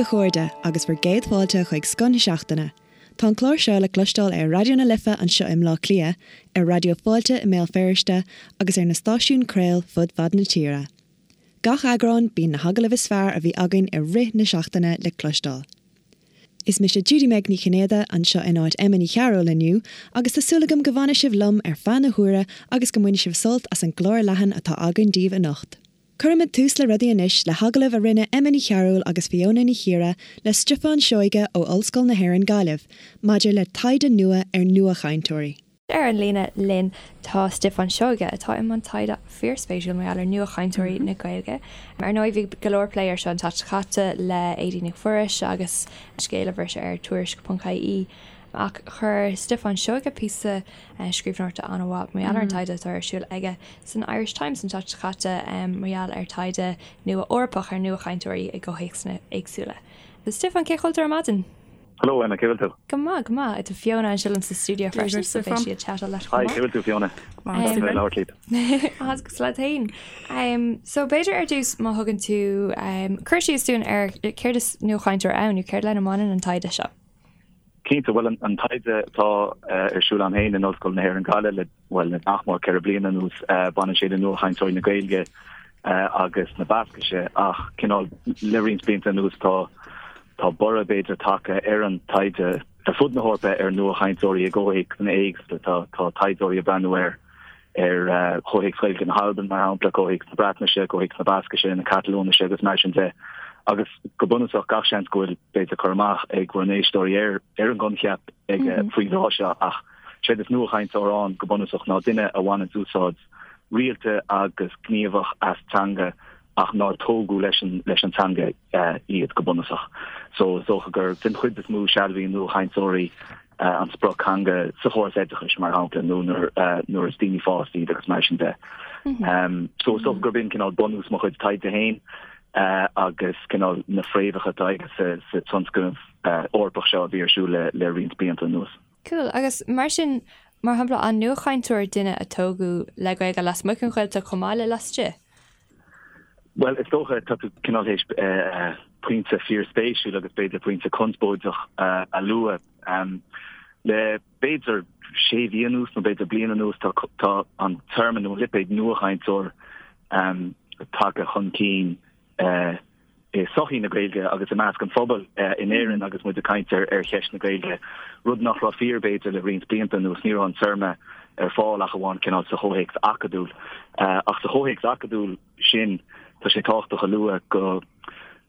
chairde, agus bhur gcéad fáilte chuig Scoth na Seachtaine. Tá an clár seo le cloisteáil ar Raidió na Life anseo i mBleá Cliath, ar Raidió Fáilte i mBéal Feirste agus ar na stáisiúin craol fud fad na tíre. Gach eagrán, bíonn na hagallaimh is fearr a bhí againn i rith na seachtaine le cloisteáil. Is mise Judy-Meg Ní Chinnéide anseo in áit Emma Ní Chearúil inniu agus tá súil agam go bhfanfaidh sibh liom ar feadh na huaire agus go mbainfidh sibh sult as an gclár leathan atá againn daoibh anocht. Cuirfimid tús le rudaí anois le hagallamh a rinne Emma Ní Chearúil agus Fiona Ní Chiaraidh le Stiofán Seoighe ó Ollscoil na hÉireann Gaillimh maidir le taighde nua ar nuachainteoirí. Ar an líne linn tá Stiofán Seoighe, atá i mbun taighde fíorspéisiúil mar gheall ar nuachainteoirí na Gaeilge. Ar ndóigh bhí go leor plé air seo an tseachtain seo caite le Aedín Nic Mhuiris agus scéal a bhris ar Tuairisc.ie. Ach chuir Stiofán Seoighe píosa scríbhneoireachta an-mhaith mar gheall ar an taighde atá ar siúl aige san Irish Times an tseachtain seo caite mar gheall ar taighde nua Eorpach ar nuachainteoirí i gcomhthéacsanna éagsúla. Stiofán, cén chaoi a bhfuil tú ar maidin? Hello Emma, cén chaoi a bhfuil tú? Go maith, go maith. Tá Fiona anseo liom sa stiúideo freisin, so beidh sí ag chatáil leat chomh maith. Hi, cén chaoi a bhfuil tú Fiona? Maith go labhairt leat. Agus leat féin. So b'fhéidir ar dtús má thugann tú cur síos dúinn ar céard is nuachainteoir ann nó céard lena mbaineann an taighde seo? Cinnte, bhuel an taighde atá ar siúl agam féin in Ollscoil na hÉireann Gaillimh le, bhuel, le nach mór 4 bliana anuas, baineann sé le nuachainteoirí na Gaeilge agus na Bascaise ach cineál le roinnt blianta anuas tá tá borradh b'fhéidir tagtha ar an taighde ar fud na hEorpa ar nuachainteoirí i gcomhthéacsanna éagsúla. Tá tá taighdeoirí ag breathnú ar ar chomhthéacs Ghaeilge na hAlban, mar shampla, comhthéacs na Breatnaise, comhthéacs na Bascaise, na Catalóinise agus mar sin de. Agus go bunúsach, gach seans go bhfuil, b'fhéidir, cur amach ag bhur n-éisteoirí ar ar an gcoincheap ag faoin dtráth seo ach séard is nuachainteoir ann go bunúsach ná duine a bhaineanns úsáid rialta agus gníomhach as teanga ach nár tógadh leis an leis an teanga iad go bunúsach. So is dócha gur den chuid is mó sealbhaíonn nuachainteoirí an sprioctheanga sa chóras oideachais, mar shampla, nó nuair is daoine fásta iad agus mar sin de. So is dócha gurb in cineál bunús mo chuid taighde féin agus cineál na fréamhacha atá aige sa tionscnamh Eorpach seo a bhí ar siúl le roinnt blianta anuas. Cool. Agus mar sin, mar shampla, an nuachainteoir duine a tógadh le Gaeilge lasmuigh den Ghaeltacht chomh maith le laistigh? Bhuel, is dócha, tá tú cineál théis pointe fíorspéisiúil agus b'fhéidir pointe conspóideach a lua. Le b'fhéidir sé mhí anuas nó b'fhéidir bliain anuas tá tá an téarma nó an lipéad nuachainteoir tagtha chun cinn i sochaí na Gaeilge agus i measc an phobail in Éirinn agus muid ag caint ar ar cheist na Gaeilge, rud nach raibh fíor b'fhéidir le roinnt blianta anuas. Ní raibh an téarma ar fáil ach amháin cineál sa chomhthéacs acadúil. Ach sa chomhthéacs acadúil sin, tá sé tábhachtach a lua go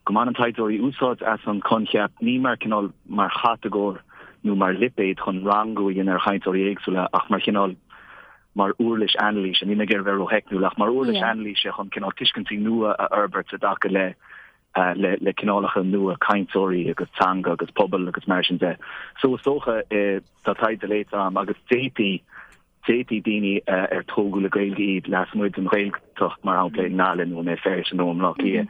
go mbaineann taighdeoirí úsáid as an choincheap ní mar cineál mar chatagóir nó mar lipéad chun rangú a dhéanamh ar chainteoirí éagsúla ach mar chineál mar uirlis anailíse, níl mé ag iarraidh a bheith rótheicniúil, ach mar uirlis anailíse chun cineál tuiscintí nua a fhorbairt i dtaca le le cineálacha nua cainteoirí agus teanga agus pobal agus mar sin de. So is dócha tá taighde léite agam agus d'fhéadfaí d'fhéadfaí daoine ar tógadh le Gaeilge iad lasmuigh den Ghaeltacht, mar shampla i nGaillimh nó i mBéal Feirste nó i mBleá Cliath,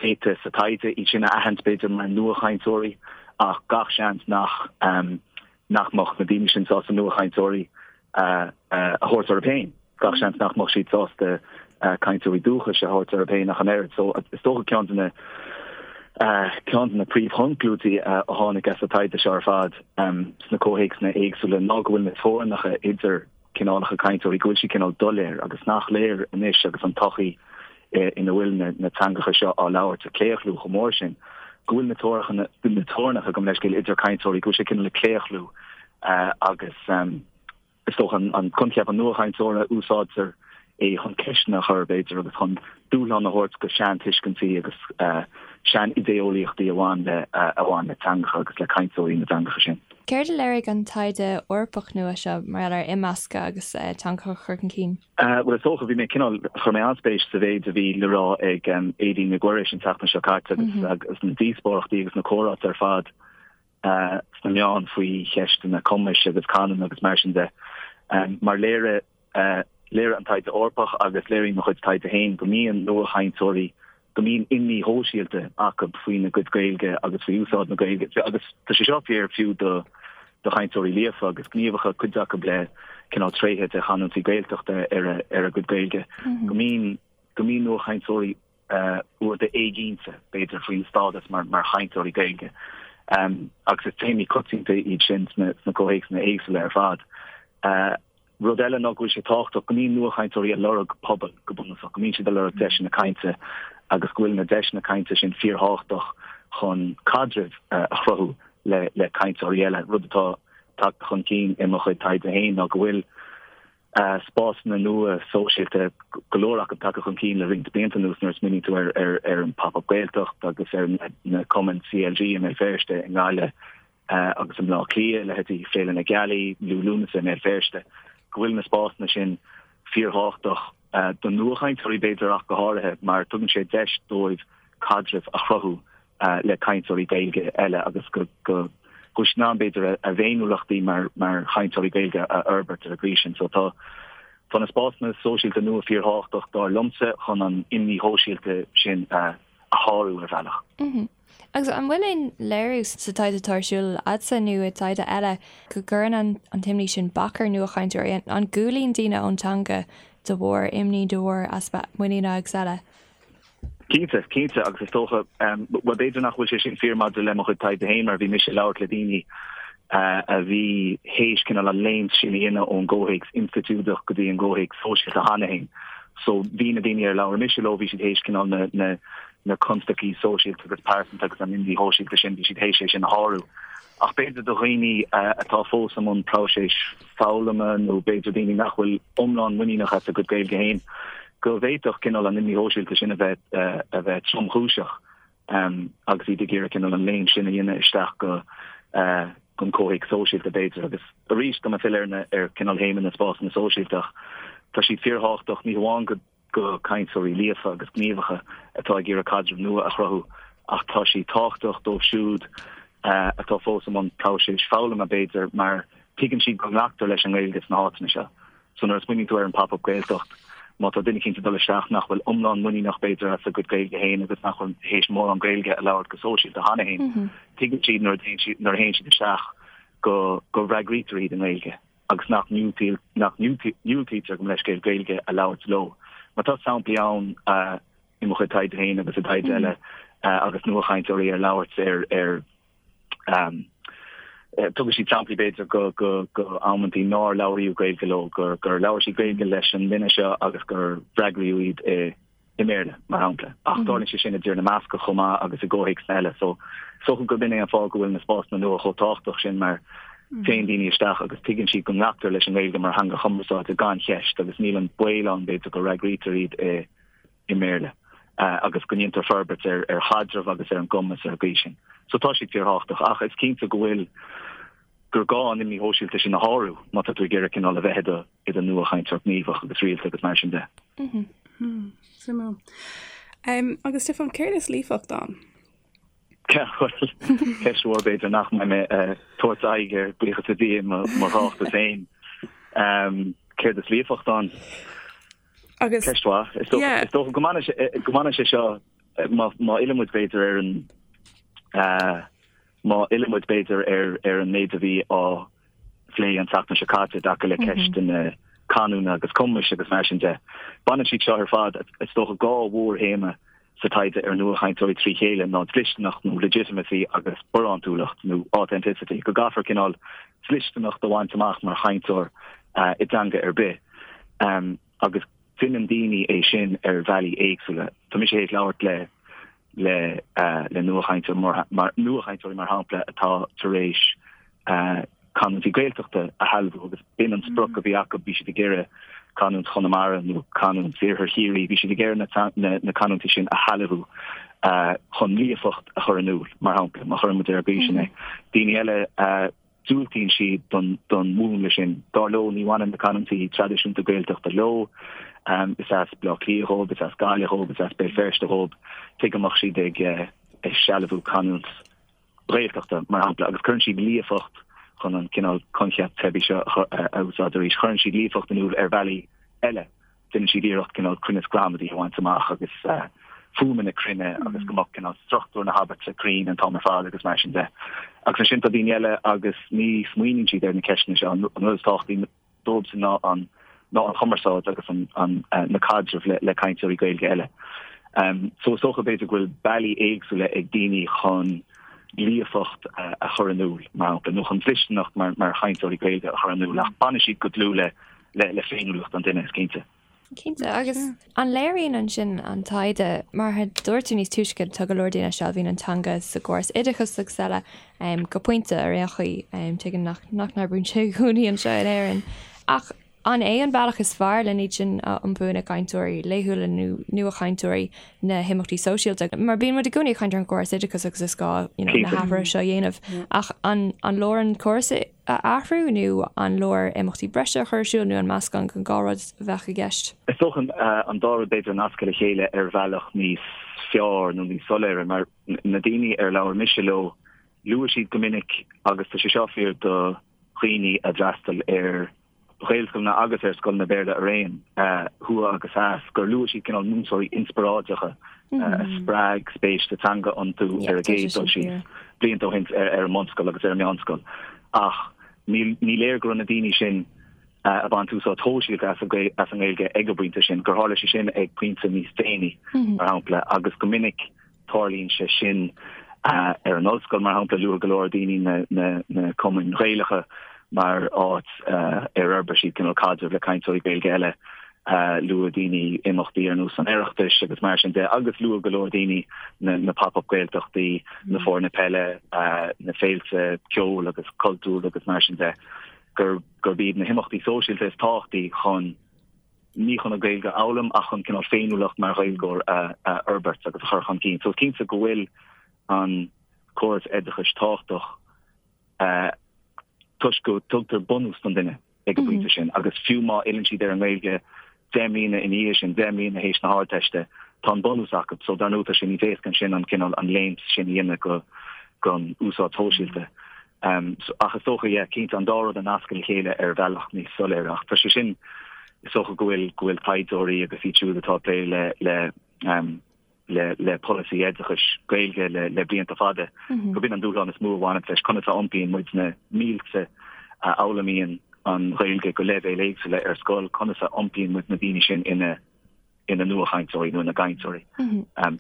d'fhéadfaí sa taighde iad sin a aithint b'fhéidir mar nuachainteoirí ach gach seans nach nach mbeadh na daoine sin sásta nuachainteoirí a thabhairt orthu féin. Gach seans nach mbeadh siad sásta cainteoirí dúchais a thabhairt orthu féin ach an oiread. So is dócha ceann de na ceann de na príomhchonclúidí a tháinig as an taighde seo ar fad sna comhthéacsanna éagsúla ná go bhfuil na teorainneacha idir cineálacha cainteoirí, go bhfuil siad cineál doiléir agus nach léir anois agus an tsochaí ina bhfuil na teangacha seo á labhairt ag claochlú chomh mór sin, go bhfuil na teorainneacha, gabh mo leithscéal, idir cainteoirí, go bhfuil sé cineál ag claochlú agus is dócha an coincheap an nuachainteora, úsáidtear é chun ceisteanna a chur, b'fhéidir, agus chun dúshlán a thabhairt do sheantuiscintí agus sean-idé-eolaíochtaí a bhain le a bhain le teangacha agus le cainteoirí na dteangacha sin. Céard a léirigh an taighde Eorpach nua seo mar gheall ar imeascadh agus teangacha a chur chun cinn? Bhuel, is dócha, bhí mé cineál, chuir mé an-spéis sa mhéid a bhí le rá ag Aedín Nic Mhuiris an tseachtain seo caite agus agus na díospóireachtaí agus na comhráite ar fad sna meáin faoi cheisteanna cumais agus canúna agus mar sin de. Mar léirigh léirigh an taighde Eorpach agus léiríonn mo chuid taighde féin go mbíonn nuachainteoirí, go mbíonn imní shóisialta acu faoina gcuid Gaeilge agus faoi úsáid na Gaeilge agus tá sé seo fíor fiú do do chainteoirí líofa agus gníomhacha, cuid acu le cineál tréithe de chanúintí Gaeltachta ar a ar a gcuid Gaeilge, go mbíonn go mbíonn nuachainteoirí. uaireanta éiginnte, b'fhéidir, faoina stádas mar chainteoirí Gaeilge. Agus is téamaí coitianta iad sin sna comhthéacsanna éagsúla ar fad. Rud eile ná go bhfuil sé tábhachtach go mbíonn nuachainteoirí ag lorg pobal, go bunúsach, go mbíonn siad ag lorg deiseanna cainte agus go bhfuil na deiseanna cainte sin fíorthábhachtach chun caidrimh a chruthú le le cainteoirí eile. Rud atá tagtha chun cinn i mo chuid taighde féin ná go bhfuil spásanna nua sóisialta, go leor acu tagtha chun cinn le roinnt blianta anuas nuair a smaoiníonn tú ar ar ar an Pop Up Gaeltacht agus ar na cumainn CLG i mBéal Feirste, i nGaillimh, agus i mBleá Cliath, leithéidí Féile na Gealaí, Liú Lúnasa i mBéal Feirste, go bhfuil na spásanna sin fíorthábhachtach do nuachainteoirí b'fhéidir ach go háirithe mar tugann sé deis dóibh caidreamh a chruthú le cainteoirí Gaeilge eile agus go bhfuil siad in ann b'fhéidir a bhféiniúlachtaí mar chainteoirí Gaeilge a fhorbairt ar an gcaoi sin. So tá tá na spásanna sóisialta nua fíorthábhachtach dar liomsa chun an imní shóisialta sin a shárú ar bhealach. Agus an bhfuil aon léiriú sa taighde atá ar siúl agatsa nó i dtaighde eile go gcuireann an t-imní sin bac ar nuachainteoirí? An gcúlaíonn daoine ón teanga de bharr imní, de bharr easpa muiníne agus eile? Cinnte, cinnte, agus is dócha, bhuel b'fhéidir nach bhfuil sé sin fíor maidir le mo chuid taighde féin mar bhí mise ag labhairt le daoine a bhí théis cineál an léimt sin a dhéanamh ón gcomhthéacs institiúideach go dtí an gcomhthéacs sóisialta cheana féin. So bhí na daoine ar labhair mise leo, bhí siad théis cineál na, na, na constaicí sóisialta agus pearsanta agus an imní shóisialta sin, bhí siad théis é sin a shárú. Ach b'fhéidir do dhaoine atá fós i mbun próiseas foghlama nó b'fhéidir daoine nach bhfuil iomlán muiníneach as a gcuid Gaeilge féin, go bhféadfadh cineál an imní shóisialta sin a bheith a bheith tromchúiseach agus iad ag iarraidh cineál an léim sin a dhéanamh isteach go gon comhthéacs sóisialta b'fhéidir. Agus arís, tá mé ag filleadh ar na ar cineál théama na spásanna sóisialta ach tá siad fíorthábhachtach ní hamháin go go cainteoirí líofa agus gníomhacha atá ag iarraidh caidreamh nua a chruthú ach tá sí tábhachtach dóibh siúd atá fós i mbun próiseas foghlama, b'fhéidir, mar tuigeann siad go nglactar leis an nGaeilge sna háiteanna seo. So nuair a smaoiníonn tú ar an Pop Up Gaeltacht, má tá duine eicínt ag dul isteach nach bhfuil iomlán muiníneach b'fhéidir as a gcuid Gaeilge féin agus nach bhfuil théis mórán Gaeilge a labhairt go sóisialta cheana féin, tuigeann siad nuair a théann siad isteach go go bhfreagraítear iad i nGaeilge. agus nach ndiúltaítear gabh mo leithscéal Gaeilge a labhairt leo. Mar tá samplaí ann i mo chuid taighde féin agus i dtaighde eile agus nuachainteoirí ar labhairt ar ar tugann siad samplaí b'fhéidir go go go amantaí nár labhraíodh Gaeilge leo, gur gur labhair siad Gaeilge leis an nduine seo agus gur fhreagraíodh iad i i mBéarla, mar shampla. Ach tarlaíonn sé sin i dTír na mBascach chomh maith agus i gcomhthéacsanna eile. So, is dócha gurb in é an fáth go bhfuil na spásanna nua chomh tábhachtach sin mar téann daoine isteach agus tuigeann siad go nglactar leis an nGaeilge mar theanga chumarsáide gan cheist agus níl an baol ann, b'fhéidir, go bhfreagraítear iad i i mBéarla agus go ndéantar forbairt ar ar chaidreamh agus ar an gcumas ar an gcaoi sin. So tá siad fíorthábhachtach ach is cinnte go bhfuil gur gá an imní shóisialta sin a shárú má tá tú ag iarraidh cineál a bheith i do i do nuachainteoir gníomhach agus rialta agus mar sin de. Suimiúil. Agus Stiofán, céard is líofacht ann? Bhuel, ceist mhór b'fhéidir nach mbeidh mé ag tabhairt aghaidh air, buíochas le Dia, i mo thráchtas féin. Céard is líofacht ann? Agus Ceist mhaith. Is dócha go mbaineann sé seo, má fhilleann muid b'fhéidir ar an má fhilleann muid b'fhéidir ar an méid a bhí á phlé an tseachtain seo caite i dtaca le ceisteanna canúna agus cumais agus mar sin de. Baineann siad seo ar fad, is dócha, 2 mhórthéama sa taighde ar nuachainteoirí trí chéile ná dlisteanacht nó legitimacy agus barántúlacht nó authenticity, go gcaithfear cineál dlisteanacht a bhaint amach mar chainteoir i dteanga ar bith agus déanann daoine é sin ar bhealaí éagsúla. Tá mise théis labhairt le le le nuachainteoir mar nuachainteoirí mar shampla atá tar éis canúintí Gaeltachta a shealbhú agus b'in an sprioc a bhí acu, bhí siad ag iarraidh canúint Chonamara nó canúint Iarthar Chiarraí, bhí siad ag iarraidh na na canúintí sin a shealbhú chun líofacht a chur in iúl, mar shampla, má chuireann muid ar an gcaoi sin é. Daoine eile diúltaíonn siad don don mhúnla sin. Dar leo, ní bhaineann na canúintí traidisiúnta Gaeltachta leo. Is as Baile Átha Cliath dhóibh, is as Gaillimh dhóibh, is as Béal Feirste dhóibh. Tuige a mbeadh siad ag ag sealbhú canúint Ghaeltachta, mar shampla, agus cuireann siad líofacht chun an cineál coincheap teibí seo a úsáid arís, cuireann siad líofacht in iúl ar bhealaí eile. Déanann siad iarracht cineál cruinneas gramadaí a bhaint amach agus fuaimeanna cruinne agus go mbeadh cineál struchtúr na habairte cruinn an t-am ar fad agus mar sin de. Agus ansin tá daoine eile agus ní smaoiníonn siad ar na ceisteanna seo. An rud is tábhachtaí dóibhsean ná an ná an chumarsáid agus an an na caidrimh le le cainteoirí Gaeilge eile. So is dócha b'fhéidir go bhfuil bealaí éagsúla ag daoine chun líofacht a chur in iúl, mar shampla, nó chun dlisteanacht mar chainteoirí Gaeilge a chur in iúl, ach baineann siad go dlúth le féiniúlacht an duine, is cinnte. Cinnte, agus an léiríonn ansin an taighde, mar a dúirt tú níos túisce, tá go leor daoine a sealbhaíonn an teanga sa gcóras oideachais agus eile, go pointe ar aon chaoi, tuigim nach n-oibríonn sé i gcónaí anseo in Éirinn, ach an é an bealach is fearr le iad sin a iompú ina gcainteoirí laethúla nó nuachainteoirí na himeachtaí sóisialta? Mar bíonn muid i gcónaí ag caint ar an gcóras oideachais agus is gá you know, na hathruithe seo a dhéanamh, ach an leor an córas a athrú nó an leor imeachtaí breise a chur ar siúl nó an meascán den dhá rud a bheadh i gceist? Is dócha an dá rud b'fhéidir a nascadh le chéile ar bhealach níos fearr nó níos soiléire mar na daoine ar labhair mise leo, luaigh siad go minic, agus tá sé seo fíor do dhaoine a d'fhreastail ar Ghaelscoileanna agus ar scoileanna Béarla araon, thuaidh agus theas, gur luaigh siad cineál múinteoirí inspioráideacha a spreag spéis sa teanga iontu ar an gcéad dul síos, blianta ó shin ar an mbunscoil agus ar an meánscoil. Ach ní léir go raibh na daoine sin ag baint úsáid shóisialta as an nGaeilge ag an bpointe sin, gur tharla sé sin ag pointe níos déanaí, mar shampla, agus go minic Tarlaíonn sé sin ar an ollscoil, mar shampla, luaigh go leor daoine na cumainn Ghaelacha mar áit ar fhorbair siad cineál caidreamh le cainteoirí Gaeilge eile. Luaigh daoine imeachtaí ar nós an Oireachtais agus mar sin de, agus luaigh go leor daoine na pop-up Gaeltachtaí, na foirne peile, na féilte ceoil agus cultúir agus mar sin de, gurb iad na himeachtaí sóisialta is tábhachtaí chun ní chun an Ghaeilge a fhoghlaim ach chun cineál féiniúlacht mar Ghaeilgeoir a fhorbairt agus a chur chun cinn. So is cinnte go bhfuil an córas oideachais tábhachtach toisc go dtugtar bunús don duine ag an bpointe sin agus fiú má fhilleann siad ar an nGaeilge 10 mbliana ina dhiaidh sin, 10 mbliana théis na hArdteiste, tá an bunús acu. So dar ndóigh tá sé níos éasca ansin an cineál an léim sin a dhéanamh go gon úsáid shóisialta. Ach is dócha, yeah, cinnte, an dá rud a nascadh le chéile ar bhealach níos soiléire. Ach tá sé sin, is dócha go bhfuil, go bhfuil taighdeoirí agus iad siúd atá ag plé le, le, le, le polasaí oideachais Gaeilge le, le blianta fada, gurb in an dúshlán is mó a bhaineann leis, conas a iompaíonn muid na mílte a fhoghlaimíonn an Ghaeilge go leibhéil éagsúla ar scoil, conas a iompaíonn muid na daoine sin ina ina nuachainteoirí nó ina gcainteoirí,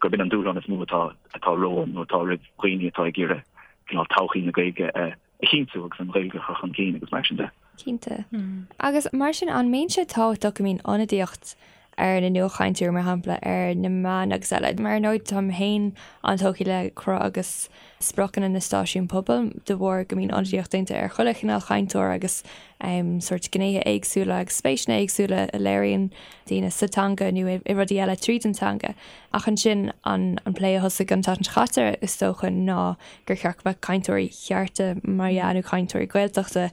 gurb in an dúshlán is mó atá atá romhainn nó atá roimh dhaoine atá ag iarraidh cineál todhchaí na Gaeilge a chinntiú agus an Ghaeilge a chur chun cinn agus mar sin de. Cinnte. Agus mar sin, an mbíonn sé tábhachtach go mbíonn ionadaíocht ar na nuachainteoirí, mar shampla, ar na meáin agus eile? Mar ar ndóigh, táim féin an-tógtha le cruth agus spriocanna na stáisiún pobail de bharr go mbíonn ionadaíocht déanta ar chuile chineál chainteoir agus sórt gnéithe éagsúla agus spéiseanna éagsúla a léiríonn daoine sa teanga nó i rudaí eile tríd an teanga. Ach ansin an plé a thosaigh an tseachtain seo caite is dócha ná gur cheart go mbeadh cainteoirí cearta mar dhea nó cainteoirí Gaeltachta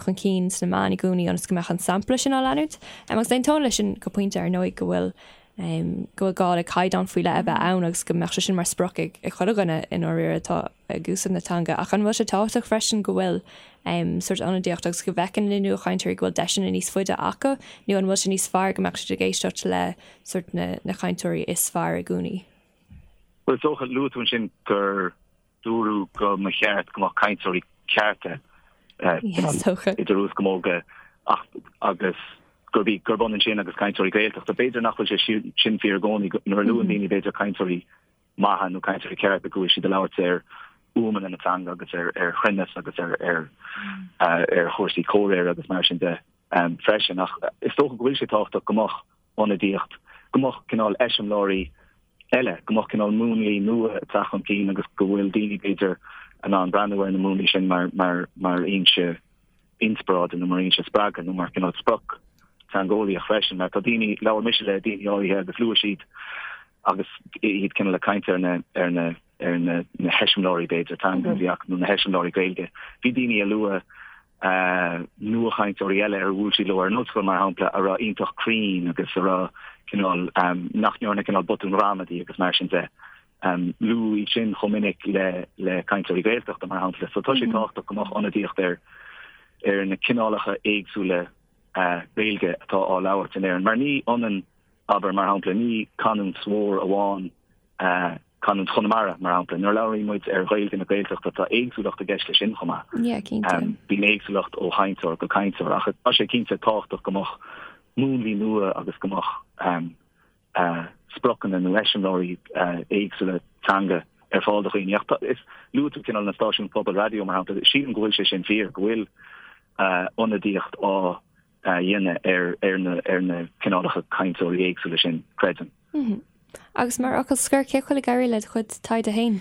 chun cinn sna meáin i gcónaí ionas go mbeadh an sampla sin á leanúint. Agus aontaím leis sin go pointe ar ndóigh go bhfuil go bhfuil gá le caighdeán faoi leith a bheith ann agus go mbeadh sé sin mar sprioc ag chuile dhuine i ndáiríre atá ag úsáid na teanga. Ach an bhfuil sé tábhachtach freisin go bhfuil sórt ionadaíocht agus go bhfeiceann na nuachainteoirí go bhfuil deiseanna níos faide acu nó an bhfuil sé níos fearr go mbeadh siad ag éisteacht le sórt na na cainteoirí is fearr i gcónaí? Bhuel, is dócha, luaigh tú ansin gur dúradh go mba cheart go mbeadh cainteoirí cearta idir uaschamóga ach agus gurb í gurb ionann sin agus cainteoirí Gaeltachta. B'fhéidir nach bhfuil sé sin fíor i gcónaí nuair a luann daoine b'fhéidir cainteoirí maithe nó cainteoirí cearta go bhfuil siad ag labhairt ar fhuaimeanna na teanga agus ar ar chruinneas agus ar ar ar chúrsaí comhréire agus mar sin de freisin. Ach is dócha go bhfuil sé tábhachtach go mbeadh ionadaíocht, go mbeadh cineál eiseamláirí eile, go mbeadh cineál múnlaí nua ag teacht chun cinn agus go bhfuil daoine, b'fhéidir, in ann breathnú ar na múnlaí sin mar, mar, mar fhoinse inspioráide nó mar fhoinse spreagtha nó mar chineál sprioc teangeolaíoch freisin. Mar tá daoine, labhair mise le daoine áirithe agus luaigh siad agus iad cineál ag caint ar na, ar na, ar na, na heiseamláirí, b'fhéidir, teanga a bhí acu nó na heiseamláirí Gaeilge. Bhí daoine a luaigh nuachainteoirí eile ar bhuail siad leo ar an ollscoil, mar shampla, a raibh iontach cruinn agus a raibh cineál, nach ndearna cineál botúin ghramadaí agus mar sin de. Luadh iad sin chomh minic le le cainteoirí Gaeltachta, mar shampla. So tá sé tábhachtach go mbeadh ionadaíocht ar ar na cineálacha éagsúla Gaeilge atá á labhairt in Éirinn, mar ní ionann, abair, mar shampla, ní canúint mhór amháin canúint Chonamara, mar shampla. Nuair a labhraíonn muid ar Ghaeilge na Gaeltachta, tá éagsúlacht i gceist leis sin chomh maith. Yeah, cinnte. Bíonn éagsúlacht ó chainteoir go cainteoir, ach tá sé cinnte tábhachtach go mbeadh múnlaí nua agus go mbeadh. spriocanna nó eiseamláirí éagsúla teanga ar fáil do dhaoine. Ach is luaigh tú cineál na stáisiúin pobail raidió mar shampla, sílim go bhfuil sé sin fíor, go bhfuil ionadaíocht á dhéanamh ar na ar na cineálacha cainteoirí éagsúla sin, creidim. Agus mar fhocal scoir, cén chaoi a bhfuil ag éirí le do chuid taighde féin?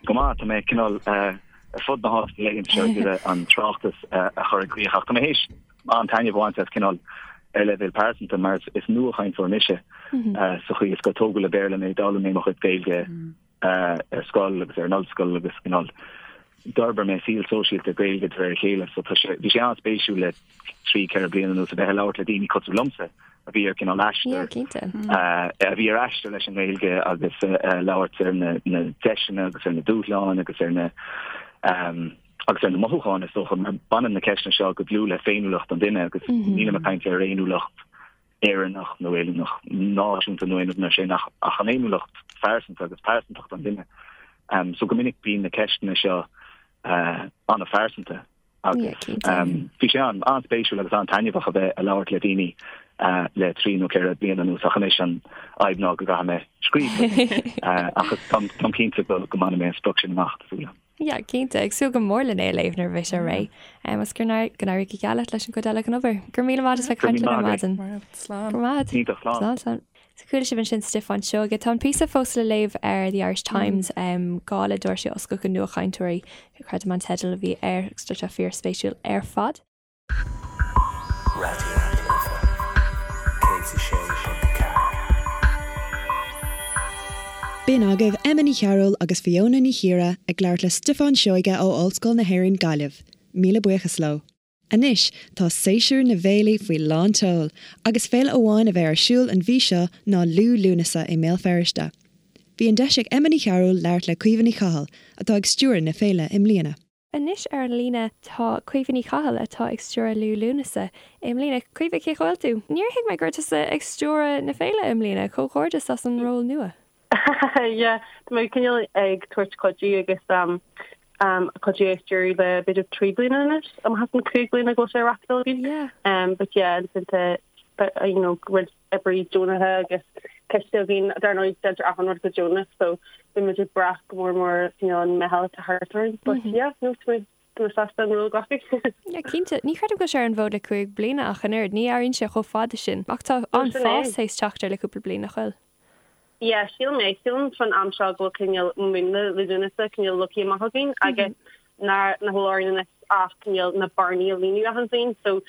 Go maith, tá mé cineál ar fud na háite na laethanta seo ag iarraidh an tráchtas a chur i gcrích ach tá mé théis an-taitneamh a bhaint as cineál ar leibhéal pearsanta mar is nuachainteoir mise sa chaoi is gur tógadh le Béarla mé, d'fhoghlaim mé mo chuid Gaeilge ar scoil agus ar an ollscoil agus cineál d'fhorbair mé saol sóisialta Gaeilge de réir a chéile so tá sé bhí sé an-spéisiúil le 3, 4 bliana anuas a bheith ag labhairt le daoine cosúil liomsa a bhí ar cineál aistear a bhí ar aistear leis an nGaeilge agus labhairt ar na na deiseanna agus ar na dúshláin agus ar na agus ar na mothúcháin is dócha mar baineann na ceisteanna seo go dlúth le féiniúlacht an duine agus nílim ag caint ar fhéiniúlacht Éireannach nó fhéiniúlacht náisiúnta nó aon rud mar sin ach ach an fhéiniúlacht phearsanta agus pearsantacht an duine. Um, so go minic bíonn na ceisteanna seo uh, an-phearsanta agus um, bhí sé an an-spéisiúil agus an-taitneamhach a bheith ag labhairt le daoine uh, le 3 nó 4 bliana anuas ach anois an fhadhb ná go gcaithfidh mé scríobh uh, ach táim cinnte go go mbainfidh mé an sprioc sin amach tá súil agam. Yeah, cinnte, ag súil go mór lena é a léamh nuair a bheidh sé réidh. Agus go n-éirí go geal leat leis an gcuid eile den obair. Go raibh míle maith as bheith ag caint linn ar maidin. Slán. Go raibh maith. Iontach, slán. Slán, slán. So chuala sibh ansin Stiofán Seoige. Tá an píosa fós le léamh ar The Irish Times, Gála Doirse a Oscailt do Nuachainteoirí, creidim an teideal a bhí air, agus tá sé fíorspéisiúil ar fad. Raidió na Life 106.4. B'in agaibh Emma Ní Chearúil agus Fiona Ní Chiaraidh ag labhairt le Stiofán Seoige ó Ollscoil na hÉireann Gaillimh. Míle buíochas leo. Anois tá séasúr na bhféilí faoi lán tseoil agus féile amháin a bheidh ar siúl an mhí seo ná Liú Lúnasa i mBéal Feirste. Bhí an deis ag Emma Ní Chearúil labhairt le Caoimhe Ní Chathail atá ag stiúradh na féile i mbliana. Anois ar an líne tá Caoimhe Ní Chathail atá ag stiúradh Liú Lúnasa i mbliana. Caoimhe, cén chaoi a bhfuil tú? Níor thuig mé go raibh tusa ag stiúradh na féile i mbliana, comhghairdeas as an ról nua. Yeah, tá mé cineál ag tabhairt cuidiú agus cuidiú é stiúradh le b'fhéidir 3 bliana anois, amach as an 5 bliana go bhfuil sé á reáchtáil againn. Yeah. But yeah, ansin tá you know, roinnt oibrithe deonacha agus coiste againn, dar ndóigh déantar achan rud go deonach so bíonn muid ag brath go mór mór cineál an meitheal atá thart orainn but yeah no tá mé tá mé sásta an ról a ghlacadh. Yeah cinnte, ní chreidim go bhfuil sé ar an bhfód le 5 bliana ach an oiread, ní airíonn sé chomh fada sin ach tá an-fhás théis teacht air le cúpla bliain nach bhfuil? Yeah sílim é, sílim faoin am seo go bhfuil cineál múnla Liú Lúnasa cineál leagtha amach againn agus nach bhfuil orainn anois ach cineál na bearnaí a líonadh achan bhliain so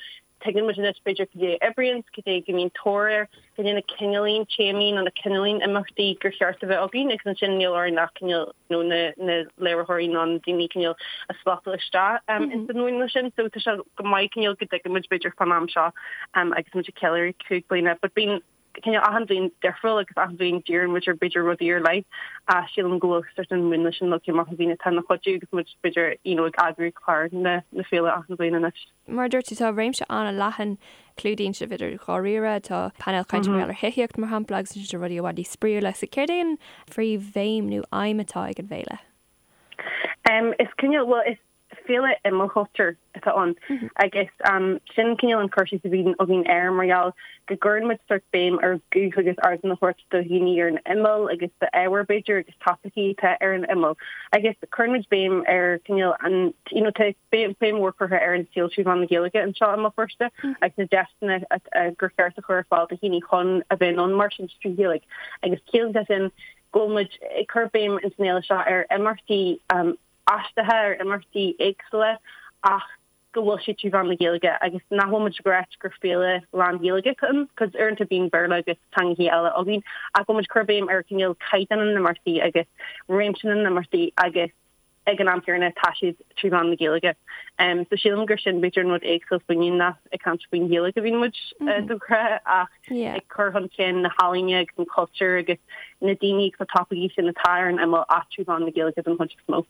Tuigeann muid anois, b'fhéidir, cad é a oibríonn, cad é go mbíonn tóir air, cad é na cineáilín téamaí nó na cineáilín imeachtaí gur cheart a bheith againn agus ansin níl orainn ach cineál nó na na léiritheoirí nó na daoine cineál a slotáil isteach ins an mhúnla sin. So tá sé go maith cineál go dtuigeann muid b'fhéidir fán am seo agus muid ag ceiliúradh 5 bliana but bíonn cineál achan bhliain difriúil agus achan bhliain díríonn muid ar b'fhéidir rudaí ar leith ach sílim go bhfuil sort an múnla sin leagtha amach againn atá ina chuidiú agus muid b'fhéidir you know ag eagrú clár na na féile achan bhliain anois. Mar a dúirt tú, tá réimse an-leathan, clúdaíonn sibh idir dháiríre, tá painéal cainte mar gheall ar thithíocht, mar shampla, agus ansin tá rudaí i bhfad níos spraíúla. So céard é an phríomhbhéim nó aidhm atá ag an bhféile? Is cineál, bhuel, is féile imeallchultúir atá ann agus sin cineál an cur síos a bhíonn againn air mar gheall go gcuireann muid sort béim ar ghuth agus ardán a thabhairt do dhaoine ar an imeall agus d'ábhair b'fhéidir agus topaicí atá ar an imeall agus cuireann muid béim ar cineál an, you know, tá béim mhór curtha ar an saol trí mheán na Gaeilge anseo i mBéal Feirste agus na deiseanna gur cheart a chur ar fáil do dhaoine chun a bheith in ann mairstin trí Ghaeilge agus ciallaíonn sé sin go bhfuil muid ag cur béim ins an fhéile seo ar imeachtaí aisteacha, ar imeachtaí éagsúla ach go bhfuil siad trí mheán na Gaeilge agus nach bhfuil muid ag ráit gur féile lán-Ghaeilge atá ann, cos uaireanta bíonn Béarla agus teangacha eile againn ach go bhfuil muid ag cur béim ar cineál caighdeán na n-imeachtaí agus réimse na n-imeachtaí agus ag an am céanna tá siad trí mheán na Gaeilge. So sílim gur sin b'fhéidir an rud éagsúil fúinne nach ag caint faoin Ghaeilge a bhíonn muid de ghnáth ach ag cur chun cinn na healaíne agus an cultúr agus na daoine agus na topaicí sin atá ar an imeall ach trí mheán na Gaeilge den chuid is mó.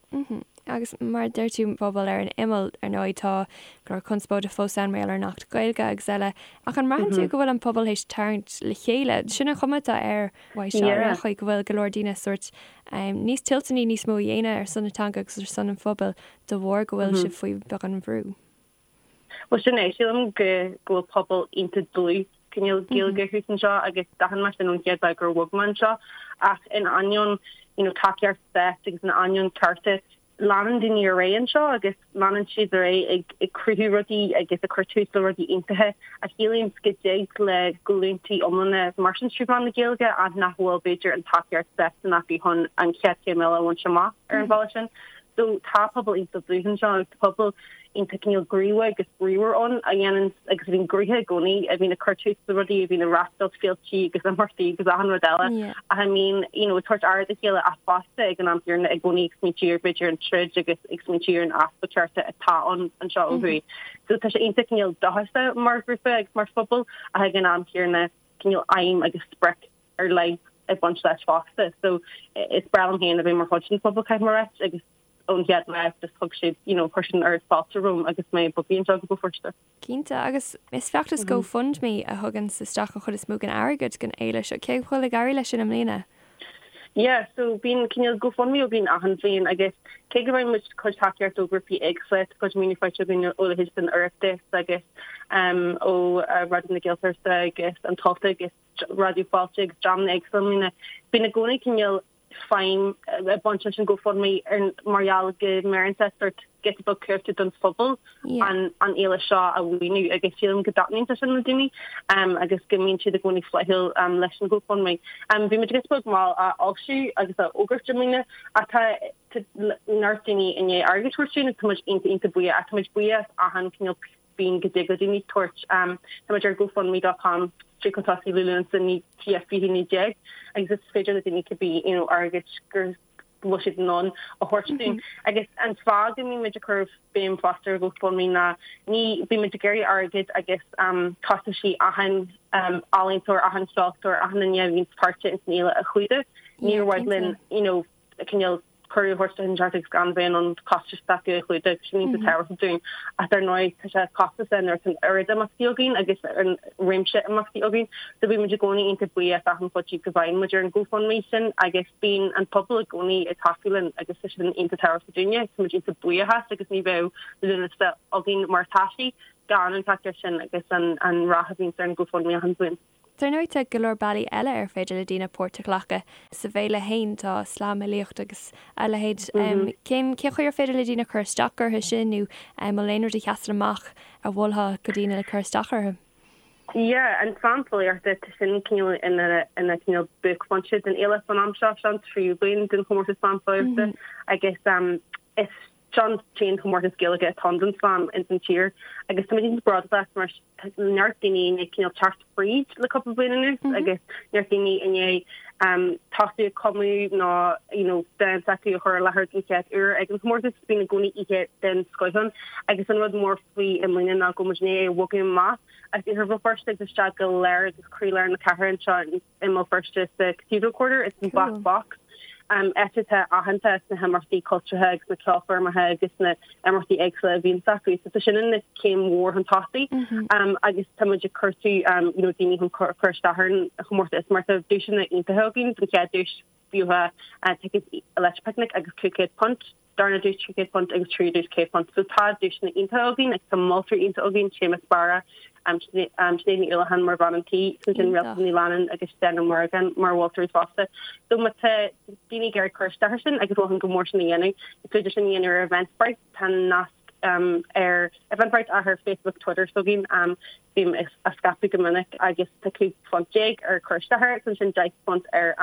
Agus mar a deir tú, pobal ar an imeall, ar ndóigh tá go leor conspóide fós ann mar gheall ar an Acht Gaeilge agus eile, ach an mbraitheann tú go bhfuil an pobal théis tarraingt le chéile? Sin an chuma atá air uaidh seo ar aon chaoi, go bhfuil go leor daoine sórt níos toilteanaí níos mó a dhéanamh ar son na teanga agus ar son an phobail de bharr go bhfuil sibh faoi bheagán brú. Bhuel sin é, sílim go bhfuil pobal iontach dlúth. cineál Gaeilge thuas anseo agus d'aithin mé sin ón chéad lá gur bhog mé anseo ach in ainneoin you know tacaíocht stáit agus in ainneoin cearta leanann daoine ar aghaidh anseo agus leanann siad ar aghaidh ag ag cruthú rudaí agus ag cur tús le rudaí iontacha a shílim go dtig le glúntaí iomlána mairstin trí mheán na Gaeilge ach nach bhfuil b'fhéidir an tacaíocht stáit sin acu chun an chéad chéim eile a bhaint amach ar an bhealach sin. So tá pobal iontach dlúth anseo agus tá pobal iontach cineál gníomhach agus bríomhar ann a dhéanann agus a bhíonn gnoitheach i gcónaí, a bhíonn ag cur tús le rudaí, a bhíonn ag reáchtáil féiltí agus imeachtaí agus achan rud eile ach a mbíonn you know ag tabhairt aire dá chéile ach fosta ag an am céanna i gcónaí ag smaointiú ar b'fhéidir an troid agus ag smaointiú ar an easpa cearta atá ann anseo ó thuaidh. So tá sé iontach cineál dóchasach mar ghrúpa agus mar phobal ach ag an am céanna cineál aidhm agus sprioc ar leith ag baint leis fosta. So is breá liom féin a bheith mar chuid den phobal caithfidh mé a ráit agus ón chéad lá just thug siad you know chuir siad an oiread fáilte romham agus mé ag bogadh anseo go Béal Feirste. Cinnte, agus is feachtas GoFundMe a thugann isteach an chuid is mó den airgead don fhéile seo. Cé bhfuil ag éirí leis sin i mbliana? Yeah, so bíonn cineál GoFundMe againn achan bhliain agus cé go bhfaigheann muid cuid tacaíocht ó ghrúpaí éagsúla, tá cuid maoiniú faighte againn ó leithéid den Oireachtas agus ó Raidió na Gaeltachta agus an Tonnta agus Raidió Fáilte agus dreamanna éagsúla i mbliana. Bíonn i gcónaí cineál feidhm ag baint leis an GoFundMe ar mar gheall go mbeireann sé sórt giota beag cumhachta don phobal an an fhéile seo a mhaoiniú agus sílim go dtaitníonn sé sin le daoine agus go mbíonn siad i gcónaí flaithiúil leis an GoFundMe. Bhí muid giota beag mall á fhoilsiú agus á fhógairt i mbliana ach tá neart daoine i ndiaidh airgead a thabhairt dúinn agus tá muid iontach iontach buíoch ach tá muid buíoch as achan cineál pingin go dtig le daoine tabhairt. Tá muid ar GoFundMe dot com stríoc chun tosaigh Liú Lúnasa TF 2019 agus is féidir le daoine cibé you know airgead go bhfuil siad in ann a thabhairt dúinn. Agus an fáth go mbíonn muid ag cur béim fosta ar GoFundMe ná ní bíonn muid ag iarraidh airgead agus costaisí achan ealaíontóir, achan cheoltóir, achan duine a bhíonn páirteach ins an fhéile a chumhdach. Níor mhaith linn you know cineál cuireadh a thabhairt do dhuine inteacht agus gan bheith in ann costais s'acu a chlúdach, sin iontach tábhachtach dúinn. Ach dar ndóigh, tá sé costasach nuair atá an oiread imeachtaí againn agus an réimse imeachtaí againn. So bíonn muid i gcónaí iontach buíoch as achan chuidiú go bhfaigheann muid ar an GoFundMe sin agus bíonn an pobal i gcónaí ag tacú linn agus tá sin iontach tábhachtach dúinne. Tá muid iontach buíoch as agus ní bheadh Lúnasa againn mar atá sí gan an tacaíocht sin agus an rath a bhíonns ar an GoFundMe achan bhliain. Dar ndóigh tá go leor bealaí eile ar féidir le daoine páirt a ghlacadh sa bhféile fhéin, tá slamfhilíocht agus a leithéid. Cén chaoi ar féidir le daoine cur isteach orthu sin nó an bhfuil aon rud a sheasann amach a mholfá do dhaoine le cur isteach orthu? Yeah, an slam filíochta, tá sin cineál ina ina cineál buaicphointe den fhéile san am seo, seo an tríú bliain den chomórtas slam filíochta agus is Seo an t-aon chomórtas Gaeilge atá ann don slam ins an tír agus tá muid iontach bródúil as mar tá neart daoine i ndiaidh cineál teacht fríd le cúpla bliain anuas agus neart daoine i ndiaidh tosú ag cumadh nó you know dán s'acu a chur i láthair den chéad uair ag an chomórtas. Bíonn i gcónaí oíche den scoith ann agus an rud mór faoi i mbliana ná go bhfuil muid i ndiaidh é a bhogadh amach as Iarthar Bhéal Feirste agus isteach go lár agus croílár na cathrach anseo i mBéal Feirste sa Cathedral Quarter, ins an Black Box, áit atá aitheanta as na himeachtaí cultúrtha agus na ceolchoirmeacha agus na imeachtaí éagsúla a bhíonns acu. So tá sin ina céim mhór chun tosaigh agus tá muid ag cuartú you know daoine chun cur isteach ar an chomórtas mar tá duaiseanna iontacha againn don chéad duais bheadh ticéad Electric Picnic agus £500. darna duais £300 agus tríú duais £100. So tá duaiseanna iontacha againn agus tá moltóirí iontacha againn, Séamus Barra, Sinéad Ní Uallacháin mar bhean an tí, ansin Réaltán Ní Leannáin agus Dan Ó Muireagáin mar mholtóirí fosta. So má tá daoine ag iarraidh cur isteach air sin agus mholfainn go mór sin a dhéanamh, is féidir sin a dhéanamh ar Eventbrite, tá nasc ar Eventbrite ach ar Facebook, Twitter s'againn. Bím á scaipeadh go minic agus tá £15 ar cur isteach air agus ansin £10 ar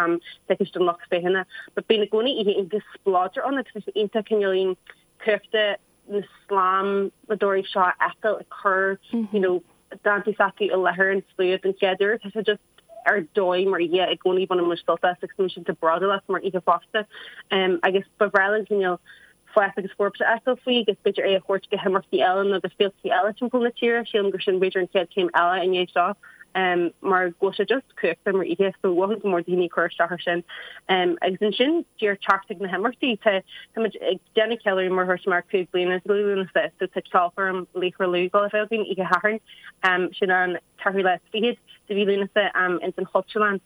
ticéid don lucht féachana. But bíonn i gcónaí oíche iontach spleodrach ann agus tá sé iontach cineáilín cumhachta na slamadóirí seo a fheiceáil ag cur you know dántaí s'acu i láthair an tslua den chéad uair. Tá sé just ar dóigh mar oíche i gcónaí baineann muid sult as agus tá muid iontach bródúil as mar oíche fosta. Agus ba bhreá linn cineál fás agus forbairt a fheiceáil faoi agus b'fhéidir é a thabhairt go himeachtaí eile nó go féiltí eile timpeall na tíre. Sílim gur sin b'fhéidir an chéad chéim eile i ndiaidh seo mar go bhfuil sé just cumhachtach mar oíche so mholfainn go mór daoine cur isteach air sin. Agus ansin díreach teacht ag na himeachtaí tá muid ag déanamh ceiliúradh mar a dúirt mé ar 5 bliana de Liú Lúnasa so tá ceolchoirm Laochra Lú ag dul a bheith againn oíche Shathairn sin an ceathrú lá is fichead de mhí Lúnasa ins an Chultúrlann.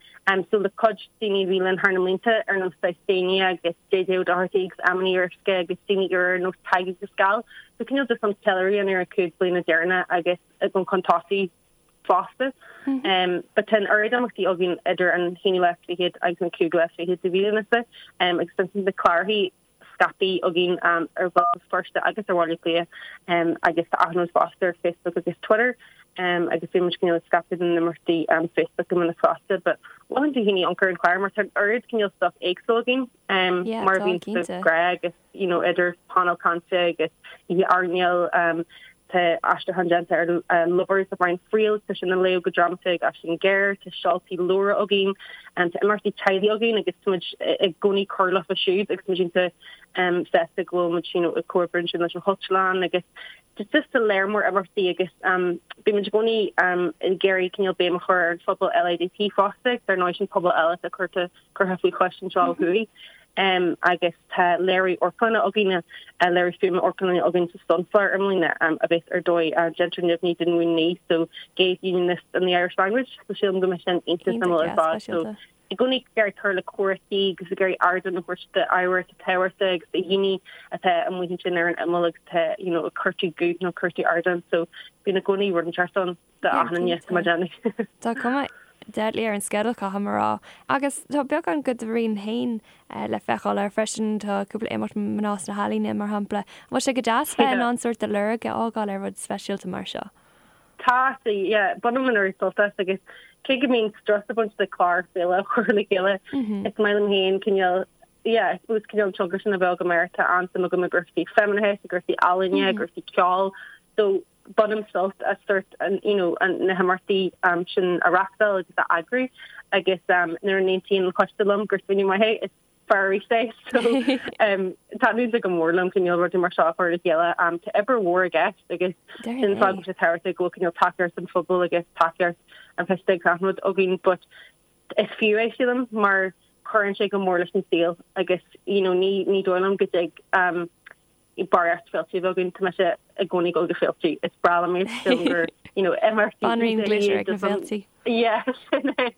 So le cuid daoine a bhí linn thar na mblianta ar nós Déine agus JJ O'Doherty agus Emma Ní Fhíoruisce agus daoine úra ar nós Tadhg agus Gal. So cineál just an ceiliúradh ar na 5 bliana deireanacha agus ag dul chun tosaigh. fosta. But tá an oiread imeachtaí againn idir an haonú lá is fichead agus an cúigiú lá is fichead de mhí Lúnasa agus ansin na clárachaí scaipthe againn ar Bhéal Feirste agus ar Bhaile Átha Cliath agus tá achan rud fosta ar Facebook agus Twitter agus bíonn muid cineál ag scaipeadh na n-imeachtaí Facebook go minic fosta. But mholfainn do dhaoine amharc ar an chlár mar tá an oiread cineál stuff éagsúil againn mar a bhíonn de ghnáth agus you know, idir painéal cainte agus oíche airneáil, tá aistriúchán déanta ar Lovers le Brian Friel, tá sin á léamh go drámata ag Aisling Ghéar, tá seoltaí leabhar againn, tá imeachtaí teaghlaigh againn agus tá muid i gcónaí ag cur leofa siúd agus muid iontach sásta go bhfuil muid you know, ag comhoibriú ansin leis an Chultúrlann agus just tá léar mór imeachtaí agus bíonn muid i gcónaí ag iarraidh cineál béim a chur ar an phobal LADT fosta agus ar ndóigh sin pobal eile atá curtha curtha faoi chois anseo ó thuaidh agus tá léiriú amharclainne againn, léiriú fuaime amharclainne againn sa Sunflower i mbliana a bheas ar dóigh déantar neamhní den mhúin so Gays Unionists and the Irish Language so sílim go mbeidh sin iontach suimiúil ar fad. So i gcónaí ag iarraidh cur le comhráití agus ag iarraidh ardán a thabhairt d'ábhair atá tábhachtach agus do dhaoine atá amuigh ansin ar an imeall agus atá you know ag cuartú guth nó cuartú ardán so bíonn i gcónaí rud inteacht ann. Tá cuma deadly ar an sceideal, caithfidh mé a rá. Agus tá beagán de do rian féin le feiceáil air freisin, tá cúpla imeacht mná sna healaíona, mar shampla. An bhfuil sé go deas bheith in ann sórt do lorg a fhágáil ar rud speisialta mar seo? Tá, yeah. Bainim an oiread sult as agus cé go mbíonn strus ag baint le clár féile a chur le chéile, is maith liom féin cineál, yeah, I suppose cineál an tionchar sin a bheith agam air. Tá an-suim agam i gcúrsaí feimineachais, i gcúrsaí ealaíne, i gcúrsaí ceoil. So, bainim sult as sórt an, you know, na himeachtaí sin a reachtáil agus a eagrú agus nuair a n-aontaíonn an coiste liom gur smaoineamh maith é, is fearr arís é. So taitníonn sé go mór liom cineál rudaí mar seo a chur le chéile. Tá obair mhór i gceist agus sin an fáth go bhfuil sé tábhachtach go bhfuil cineál tacaíocht an phobail agus tacaíocht an choiste agus achan rud againn but is fiú é sílim mar cuireann sé go mór leis an saol agus you know ní ní dóigh liom go dtig barraíocht féilte a bheith againn, tá mise i gcónaí ag dul go féilte, is breá liom iad, sílim gur, you know, imeachtaí Banríon glitter ag na féilte. Yeah, sin é.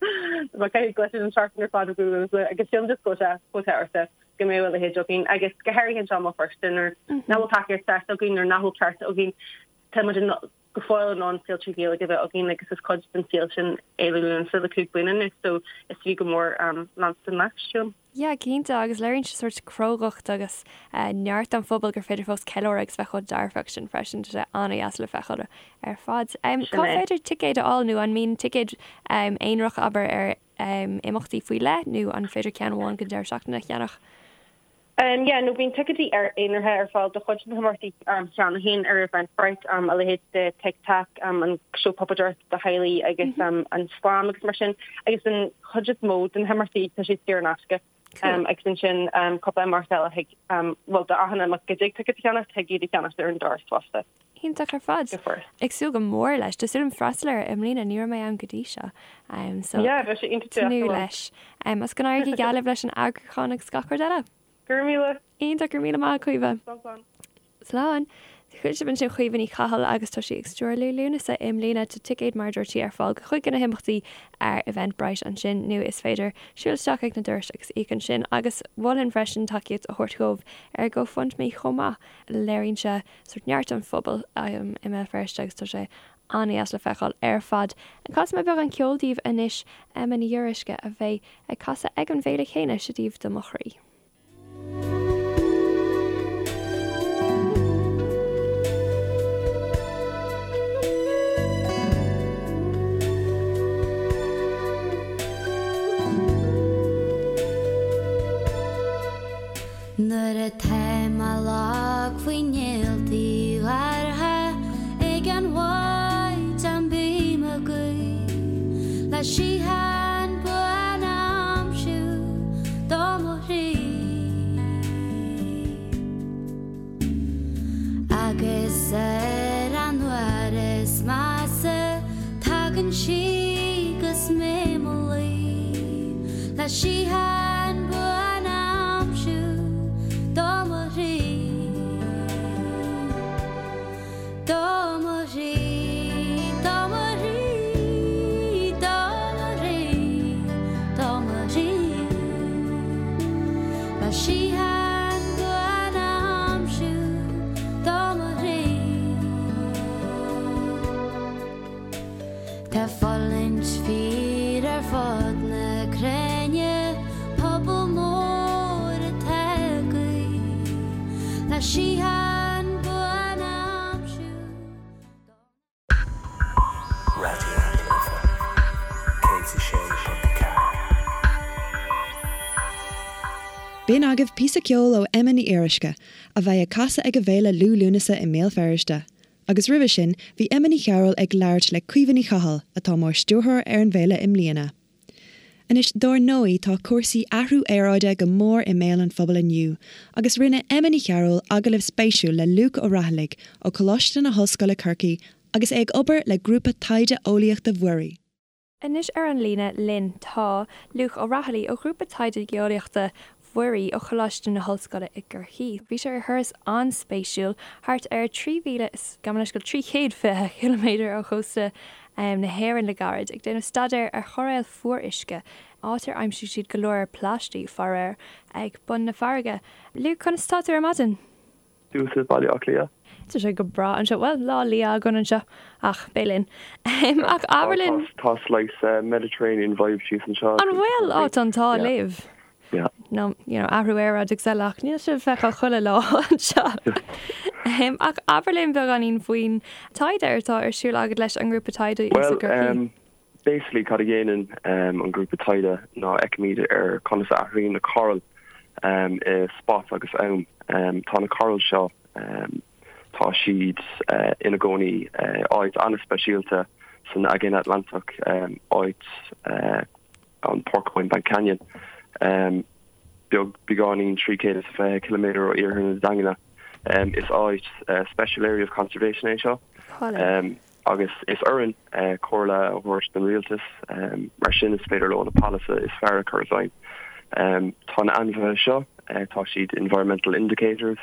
Tá caithfidh glitter an tseachtain ar fad agam agus sílim just go bhfuil sé chomh tábhachtach go mbeadh a leithéid againn agus go háirithe anseo i mBéal Feirste nuair nach bhfuil tacaíocht stáit againn nuair nach bhfuil cearta againn tá muid in go fóill in ann féilte Gaeilge a bheith againn agus is cuid den saol sin Fhéile Lúnasa le 5 bliana anois so is fiú go mór leanstan leis, sílim. Yeah, cinnte, agus léiríonn sé sórt crógacht agus neart an phobail gur féidir fós ceiliúradh agus bheith chomh dearfach sin freisin, tá sé an-dheas le feiceáil ar fad. Cá féidir ticéid a fháil nó an mbíonn ticéid aonarach, abair, ar imeachtaí faoi leith nó an féidir ceann amháin don deireadh seachtaine a cheannach? Yeah, no, bíonn ticéidí ar aonaraithe ar fáil do chuid de na himeachtaí cheana féin ar Eventbrite, a leithéid de Tic Tac, an seó puipéadóireachta do theaghlaigh agus an Slam agus mar sin, agus an chuid is mó de na himeachtaí tá siad saor in aisce. Agus ansin cúpla imeacht eile thig, bhuel do achan imeacht go dtig ticéad a cheannacht, thig iad a cheannacht ar an doras fosta. Iontach ar fad. Ag súil go mór leis. Tá súil agam freastal air i mbliana, ní raibh mé ann go dtí seo. So, Yeah, bheadh sé iontach deas tnúth leis. Agus go n-éirí go geal libh leis an eagrúchán agus gach rud eile. Go raibh míle. Iontach, go raibh míle maith, Caoimhe. Slán, slán. Slán. Chuala sibh ansin Caoimhe Ní Chathail agus tá sí ag stiúradh Liú Lúnasa i mbliana. Tá ticéid mar a dúirt sí ar fáil do chuid de na himeachtaí ar Eventbrite ansin nó is féidir siúl isteach ag na dorais agus íoc ansin. Agus mholfainn freisin tacaíocht a thabhairt dhóibh ar GoFundMe chomh maith. Léiríonn sé sórt neart an phobail i mBéal Feirste agus tá sé an-dheas le feiceáil ar fad. Casfaidh mé beagán ceoil daoibh anois, Emma Ní Fhíoruisce a bheidh ag casadh ag an bhféile chéanna, seo daoibh Do Mo Chroí. Nuair atá mé lag faoi néaltaí gártha ag an mhaidin bím ag guí le síocháin buan a aimsiú do mo chroí. Agus ar an uair is measa tagann sí 'gus mé 'mo luí le síocháin buan a aimsiú do mo chroí, do mo chroí. Tá fulaingt fíor ar fud na cruinne, pobal mór atá ag guí le síocháin buan a aimsiú. Raidió na Life 106.4. B'in agaibh píosa ceoil ó Emma Ní Fhíoruisce, a bheidh ag casadh ag an bhféile Liú Lúnasa i mBéal Feirste. Agus roimhe sin, bhí Emma Ní Chearúil ag labhairt le Caoimhe Ní Chathail, atá mar stiúrthóir ar an bhféile i mbliana. Anois, dár ndóigh, tá cúrsaí athrú aeráide go mór i mbéal an phobail inniu, agus rinne Emma Ní Chearúil agallamh spéisiúil le Luke Ó Raghallaigh ó Choláiste na hOllscoile Corcaigh agus é ag obair le Grúpa Taighde Eolaíochta Mhuirí. Anois ar an líne linn tá Luke Ó Raghallaigh ó Ghrúpa Taighde Geolaíochta Mhuirí ó Choláiste na hOllscoile i gCorcaigh. Bhí sé ar thuras an-spéisiúil thart ar 3,000 is, gabh mo leithscéal, 320 ciliméadar ó chósta na hÉireann le gairid, ag déanamh staidéir ar choiréil fuaruisce, áit ar aimsigh siad go leor plaistigh, faraor, ag bun na farraige. Luke, conas atá tú ar maidin? Thuas i Baile Átha Cliath. Tá sé go breá anseo. Bhuel, lá liath againn anseo, ach beidh linn. Ach abair linn. Tá slice Mediterranean vibe síos anseo. An bhfuil? Á, tá an t-ádh libh. Yeah. No, you know, athrú aeráide agus eile, ach níl sé le feiceáil chuile lá anseo. Ach abair linn beagáinín faoin taighde atá ar siúl agat leis an ngrúpa taighde Well, Basically cad a dhéanann an grúpa taighde ná fheicimid ar conas a athraíonn na corail i spás agus am. Tá na corail seo, tá siad ina gcónaí áit an-speisialta san Aigéan Atlantach, áit an Porcupine Bank Canyon, beag beagáinín 320 ciliméadar ó iarthar na Daingne. Is áit Special Area of Conservation é seo. Agus is orainn comhairle a thabhairt don rialtas, mar sin is féidir leo na polasaithe is fearr a chur i bhfeidhm. Tá na ainmhithe seo, tá siad environmental indicators,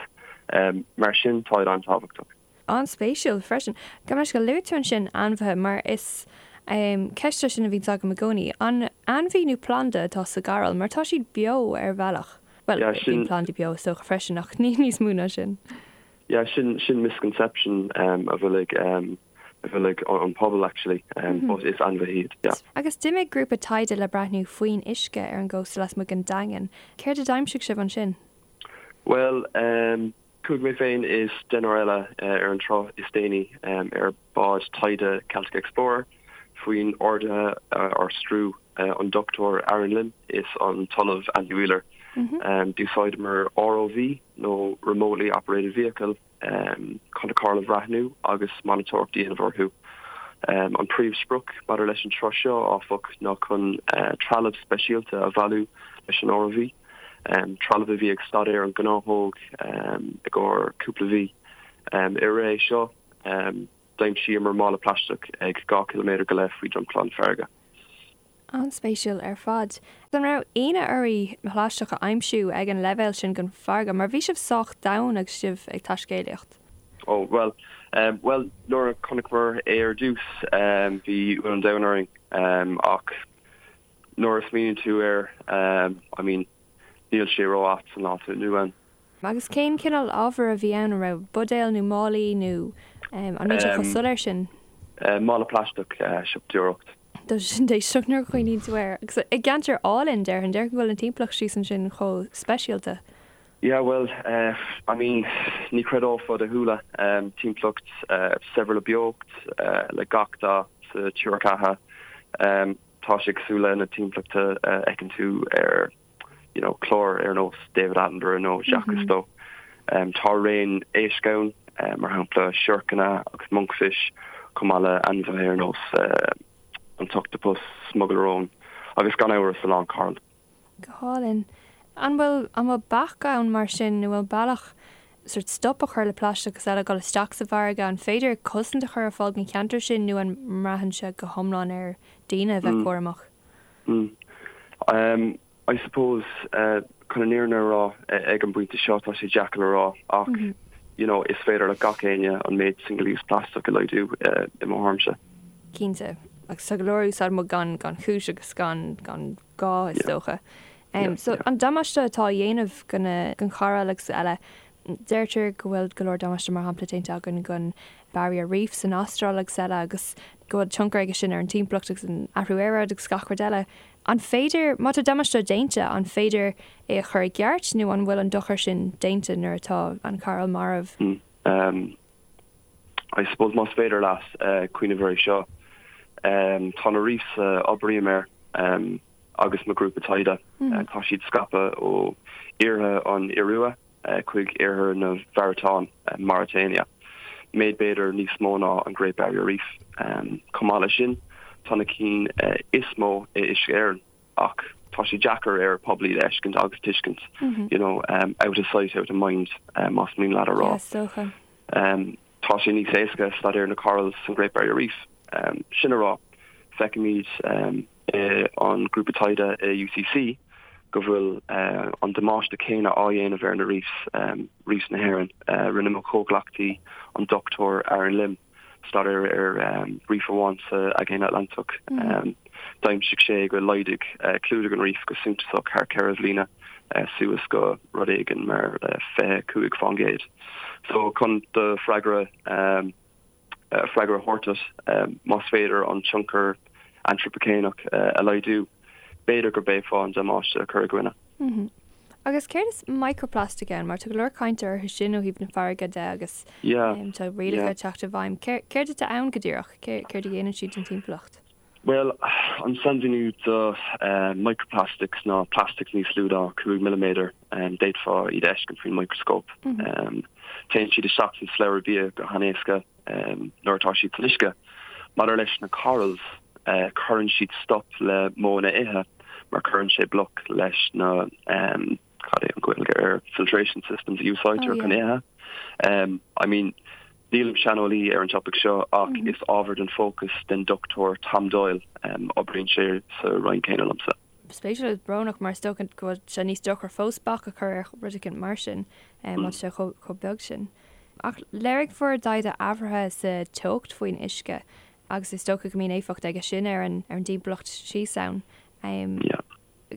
mar sin táid an-tábhachtach. An-spéisiúil freisin. Gabh mo leithscéal, luaigh tú ansin ainmhithe mar is ceist é sin a bhíonns agam i gcónaí. An ainmhí nó planda atá sa gcoral mar tá siad beo ar bhealach? Bhuel, bíonn plandaí beo is dócha freisin ach ní níos mó ná sin. Yeah, sin sin misconception a bhfuil ag a bhfuil ag an pobal actually, but is ainmhithe iad, yeah. Agus d'imigh grúpa taighde le breathnú faoin uisce ar an gcósta lasmuigh den Daingean. Céard a d'aimsigh sibh ansin? Bhuel, chuaigh mé féin is deichniúr eile ar an turas is déanaí ar bhád taighde Celtic Explorer faoin orduithe ár stiúir an Dr Aaron Lim is an tOllamh Andy Wheeler. D'úsáideamar ROV nó Remotely Operated Vehicle chun na corail a bhreathnú agus monatóireacht a dhéanamh orthu. An príomhsprioc maidir leis an turas seo, áfach, ná chun trealamh speisialta a bhailiú leis an ROV, trealamh a bhí ag staidéar an ghnáthóg i gcomhair cúpla mhí. I rith é seo, D'aimsíomar mála plaisteach ag 2 ciliméadar go leith faoi dromchla na farraige. An-spéisiúil ar fad. An raibh ionadh oraibh plaisteach a aimsiú ag an leibhéal sin den bhfarraige, mar bhí sibh sách domhain agus sibh ag taiscéalaíocht? Ó, bhuel, bhuel, nuair a chonaiceamar é ar dtús, bhí ionadh an domhain orainn, ach nuair a smaoiníonn tú air, I mean, níl sé ró-ait san lá atá inniu ann. Agus cén cineál ábhair a bhí ann? An raibh buidéil nó málaí nó an mbíonn sé chomh soiléir sin? Mála plaisteach, siopadóireacht. Tá sin déistineach nuair a chuimhníonn tú air. Agus i gceantar álainn, déarfainn. Déarfainn go bhfuil an timpeallacht síos ansin chomh speisialta. Yeah, bhuel, I mean, ní chreidfeá do shúile. Timpeallacht saibhir le beocht, le gach dath sa triúr ceatha. Tá sé cosúil le na timpeallachta a fheiceann tú ar you know, clár ar nós David Attenborough nó Jacques Cousteau. Tá raon éisc ann, mar shampla siorcanna agus monkfish, chomh maith le ainmhithe ar nós an t-ochtapus, smugairle róin agus gan amhras a lán coral. Go hálainn. An bhfuil, an bhfuil bac ann mar sin nó bhfuil bealach sort stop a chur le plaisteach agus eile ag dul isteach sa bhfarraige? An féidir cosaint a chur ar fáil don cheantar sin nó an mbraitheann sé go hiomlán ar daoine a bheith cúramach? Mm. I suppose, chun an fhírinne a rá, ag an bpointe seo tá sé deacair le rá ach you know is féidir le gach éinne an méid single use plastic a laghdú i mo thuairimse. Cinnte. Agus tá go leor a úsáideann muid gan gan chúis agus gan gan gá is dócha. So an damáiste atá á dhéanamh go na don choral agus eile, deirtear go bhfuil go leor damáiste mar shampla déanta againn don Barrier Reef san Astráil agus eile agus. go bhfuil tionchar aige sin ar an timpeallacht agus an athrú aeráide agus gach rud eile. An féidir, má tá damáiste déanta, an féidir é a chur i gceart nó an bhfuil an dochar sin déanta nuair atá an coral marbh? I suppose más féidir leat cuimhneamh air seo, tá na reefs a oibrím air agus mo grúpa taighde, tá siad scaipthe ó iarthar an Iorua chuig oirthear na Mháratáin, Mauritania, méid b'fhéidir níos mó ná an Great Barrier Reef. Chomh maith leis sin, tá na cinn is mó i Uisce Éireann, ach tá sé deacair ar pobal iad a fheiscint agus tuiscint, you know, out of sight, out of mind, más mian leat a rá. Yeah, is dócha. Tá sé níos éasca staidéar na corals san Great Barrier Reef. Sin a rá, feicimid i an grúpa taighde i UCC go bhfuil an damáiste céanna á dhéanamh ar na reefs, reefs na hÉireann. Rinne mo chomhghleacaí, an Dr Aaron Lim, staidéar ar reef amháin sa Aigéan Atlantach. D'aimsigh sé go laghdaigh clúdach an reef go suntasach thar 4 bhliana, suas go rud éigin mar 25%. So chun do freagra freagra a thabhairt duit, más féidir an tionchar antrapaicéineach a laghdú, b'fhéidir gurb é fáth an damáiste a chur i gcoinne. Agus céard is microplastic ann? Mar tá go leor cainte orthu sin ó thaobh na farraige de agus tá rialacha ag teacht i bhfeidhm. Céard atá ann go díreach? Céard a dhéanann siad don timpeallacht? Bhuel, an sainmhíniú do microplastics ná plastic níos lú ná 5 milliméadar. D'fhéadfá iad a fheiscint faoin micreascóp. Téann siad isteach san slabhra bia go han-éasca nuair atá siad san uisce. Maidir leis na corals, cuireann siad stop le modhanna ithe mar cuireann sé bloc leis na, cad é an Ghaeilge ar filtration systems a úsáidtear chun ithe. I mean, nílim saineolaí ar an topaic seo ach is ábhar den fócas den Dr Tom Doyle, oibríonn sé sa roinn céanna liomsa. Spéisiúil agus brónach mar is dócha go bhfuil sé níos deacra fós bac a chur ar rud éicint mar sin má tá sé chomh beag sin. Ach léirigh bhur dtaighde athruithe sa teocht faoin uisce agus is dócha go mbíonn éifeacht aige sin ar an dtimpeallacht síos ann.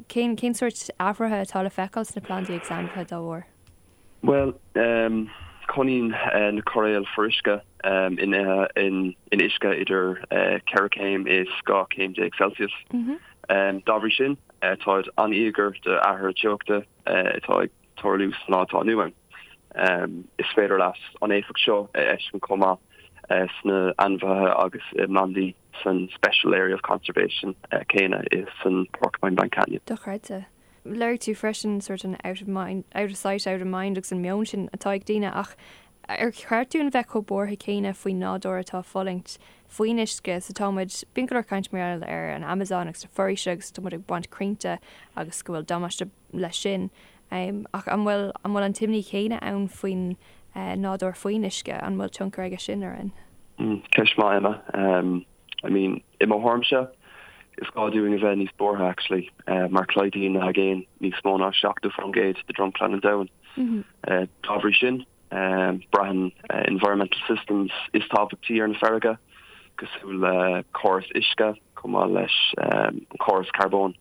Cén cén sórt athruithe atá le feiceáil sna plandaí agus ainmhithe dá bharr? Bhuel, cónaíonn na coiréil fuaruisce in in uisce idir 4 céim is 12 céim Celsius. Dá bhrí sin, táid an-íogair d'athruithe teochta atá ag tarlú sa lá atá inniu ann. Is féidir leat an éifeacht seo a fheiscint chomh maith sna ainmhithe agus i bplandaí san Special Area of Conservation céanna i san Porcupine Bank Canyon. Dochreidte. Léirigh tú freisin sort an out of mind, out of sight, out of mind agus an meon sin atá ag daoine ach ar cheart dúinn bheith chomh buartha céanna faoin nádúr atá ag fulaingt faoin uisce so tá muid, bíonn go leor caint mar gheall ar an Amazon agus na foraoise agus tá muid ag baint crainnte agus go bhfuil damáiste leis sin ach an bhfuil, an bhfuil an t-imní chéanna ann faoin nádúr faoin uisce, an bhfuil tionchar aige sin orainn? Ceist maith Emma. I mean, i mo thuairimse, is gá dúinn a bheith níos buartha actually, mar clúdaíonn na haigéin níos mó ná 70% de dromchla an domhain. Dá bhrí sin, braitheann environmental systems is tábhachtaí ar na farraige, cosúil le córas uisce, chomh maith leis an córas carbóin.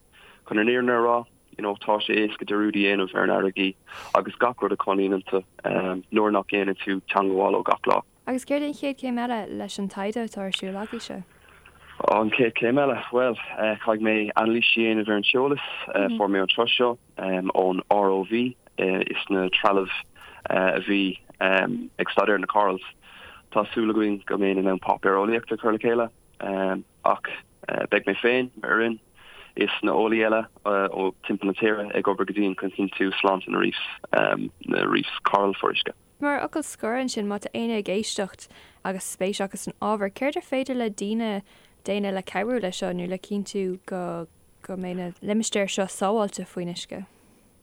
Chun an fhírinne a rá, you know, tá sé éasca dearúd a dhéanamh ar na farraigí agus gach rud a chónaíonn iontu nuair nach ndéanann tú teangmháil leo gach lá. Agus céard é an chéad chéim eile leis an taighde atá ar siúl agaibhse? An chéad chéim eile? Bhuel, caithfidh mé anailís a dhéanamh ar an t-eolas a fuair mé an tráth seo ón ROV is na trealamh a bhí ag staidéar na corals. Tá súil againn go mbeinn in ann páipéar eolaíochta a chur le chéile ach beidh mé féin, m'fhoireann is na eolaí eile ó timpeall na tíre ag obair go dian chun cinntiú sláinte na reefs, na reefs coral fuaruisce. Mar fhocal scoir ansin, má tá éinne ag éisteacht agus spéis acu san ábhar, céard ar féidir le daoine déanamh le cabhrú leis seo nó le cinntiú go go mbeidh na limistéir seo sábháilte faoin uisce?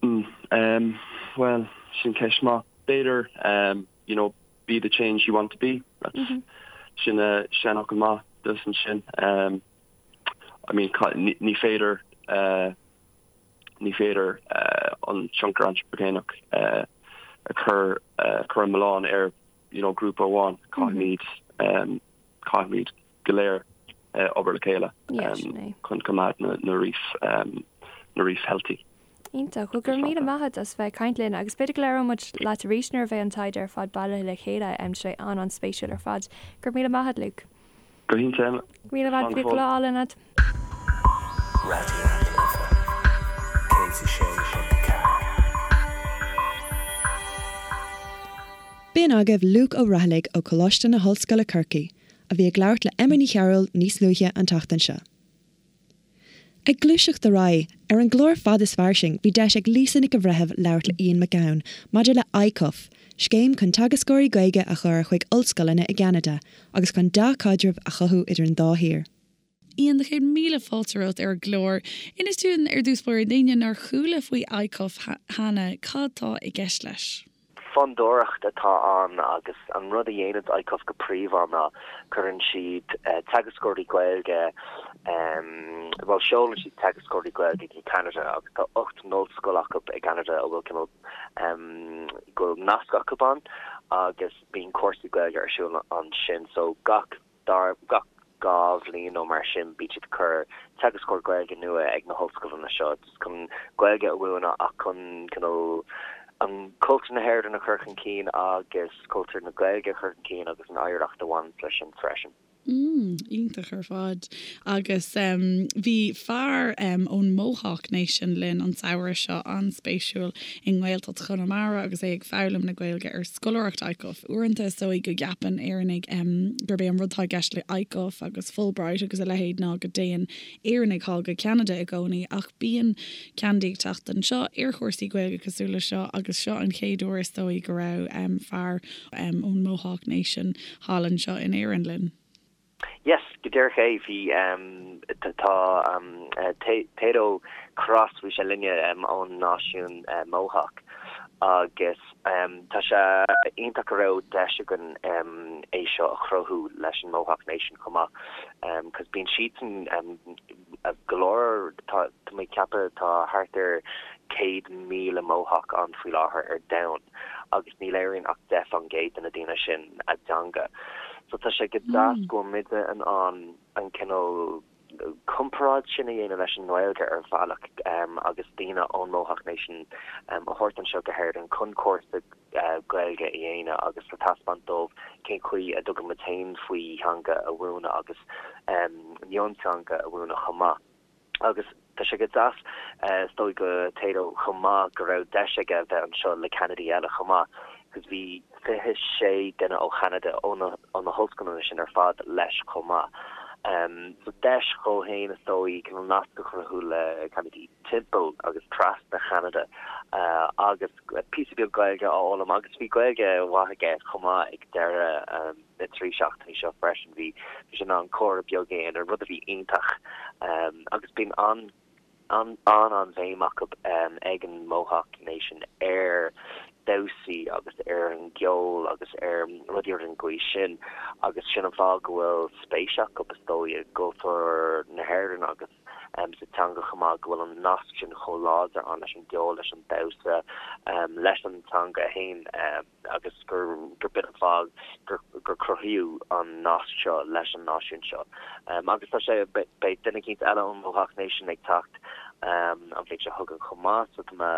Mm, bhuel, sin ceist maith. B'fhéidir, you know, be the change you want to be. That's sin seanfhocal maith dus ansin. I mean, ní féidir Ní féidir an tionchar antrapaigineach a chur chur an milleán ar you know grúpa amháin. Caithfimid caithfimid go léir obair le chéile chun coimeád na na reefs na reefs healthy. Iontach. Bhuel, go raibh míle maith agat as bheith ag caint linn agus b'fhéidir go labhróidh muid leat arís nuair a bheidh an taighde ar fad bailithe le chéile. Tá sé an-an-spéisiúil ar fad. Go raibh míle maith agat, Luke. Go hiontach Emma. Míle fáilte, bíodh lá álainn agat. Raidió na Life 106.4. B'in agaibh Luke Ó Raghallaigh ó Choláiste na hOllscoile Corcaigh, a bhí ag labhairt le Emma Ní Chearúil níos luaithe an tseachtain seo. Ag gluaiseacht ar aghaidh, ar an gclár Fad is Fairsing bhí deis ag Lisa Nic an Bhreithimh labhairt le Ian McGowan maidir le ICUF, scéim chun teagascóirí Gaeilge a chur chuig ollscoileanna i gCeanada agus chun dea-chaidreamh a chothú idir an dá thír. Ian, 100,000 fáilte romhat ar an gclár. Inis dúinn ar dtús báire d'éinne nár chuala faoi ICUF cheana, cad tá i gceist leis? Fondúireacht atá ann agus an rud a dhéanann ICUF go príomha ná cuireann siad teagascóirí Gaeilge, bhuel seolann siad teagascóirí Gaeilge go Ceanada agus tá 8 n-ollscoil acu i gCeanada a bhfuil cineál, go bhfuil nasc acu ann agus bíonn cúrsaí Gaeilge ar siúl ansin so gach Dar gach 2 bhliain nó mar sin bíonn siad ag cur teagascóir Gaeilge nua ag na hollscoileanna seo just chun Gaeilge a mhúineadh ach chun cineál an cultúr na hÉireann a chur chun cinn agus cultúr na Gaeilge a chur chun cinn agus an oidhreacht a bhaineanns leis sin freisin. Mm, iontach ar fad. Agus bhí fear ón Mohawk Nation linn an samhradh seo, an-spéisiúil, i nGaeltacht Chonamara agus é ag foghlaim na Gaeilge ar scoláireacht ICUF. Uaireanta is dóigh go gceapann Éireannaigh gurb é an rud atá i gceist le ICUF agus Fulbright agus a leithéid ná go dtéann Éireannaigh thall go Ceanada i gcónaí ach bíonn Ceanadaigh ag teacht anseo ar chúrsaí Gaeilge cosúil le seo agus seo an chéad uair is dóigh go raibh fear ón Mohawk Nation thall anseo in Éirinn linn. Yes, go díreach é, bhí, tá Tayto Cross, bhí sé linne ón náisiún Mohawk agus tá sé iontach go raibh deis againn é seo a chruthú leis an Mohawk Nation chomh maith cos bíonn siadsan go leor, tá mé ag ceapadh tá thart ar 100,000 Mohawk ann faoi láthair ar domhan. agus ní labhraíonn ach 10% de na daoine sin a dteanga. So tá sé go deas go bhfuil muide in ann an cineál comparáid sin a dhéanamh leis an nGaeilge ar bhealach agus daoine ón Mohawk Nation a thabhairt anseo go hÉirinn chun cúrsa Gaeilge a dhéanamh agus le taispeáint dóibh cén chaoi a dtugann muid féin faoi theanga a mhúineadh agus mionteanga a mhúineadh chomh maith. Agus tá sé go deas, is dóigh do Tayto chomh maith go raibh deis aige a bheith anseo le Ceanadaigh eile chomh maith, cos bhí 26 duine ó Cheanada, ó na, ó na hollscoileanna sin ar fad leis chomh maith. So deis dhó fhéin is dóigh cineál nasc a chruthú le Ceanadaigh timpeall agus trasna Cheanada agus píosa beag Gaeilge a fhoghlaim agus bhí Gaeilge mhaith aige chomh maith ag deireadh na dtrí seachtainí seo freisin. Bhí sé in ann comhrá beag a dhéanamh, rud a bhí iontach. Agus bíonn an an-an-bhéim acu ag an Mohawk Nation ar damhsaí agus ar an gceol agus ar rudaí ar an gcaoi sin agus sin an fáth go bhfuil spéis acu is dóigh i gcultúr na hÉireann agus sa teanga chomh maith, go bhfuil an nasc sin chomh láidir ann leis an gceol, leis an damhsa, leis an teanga féin. agus gur b'in an fáth gur cruthaíodh an nasc seo leis an náisiún seo. Agus tá sé, beidh duine eicínt eile ón Mohawk Nation ag teacht an bhliain seo chugainn chomh maith, so tá mé,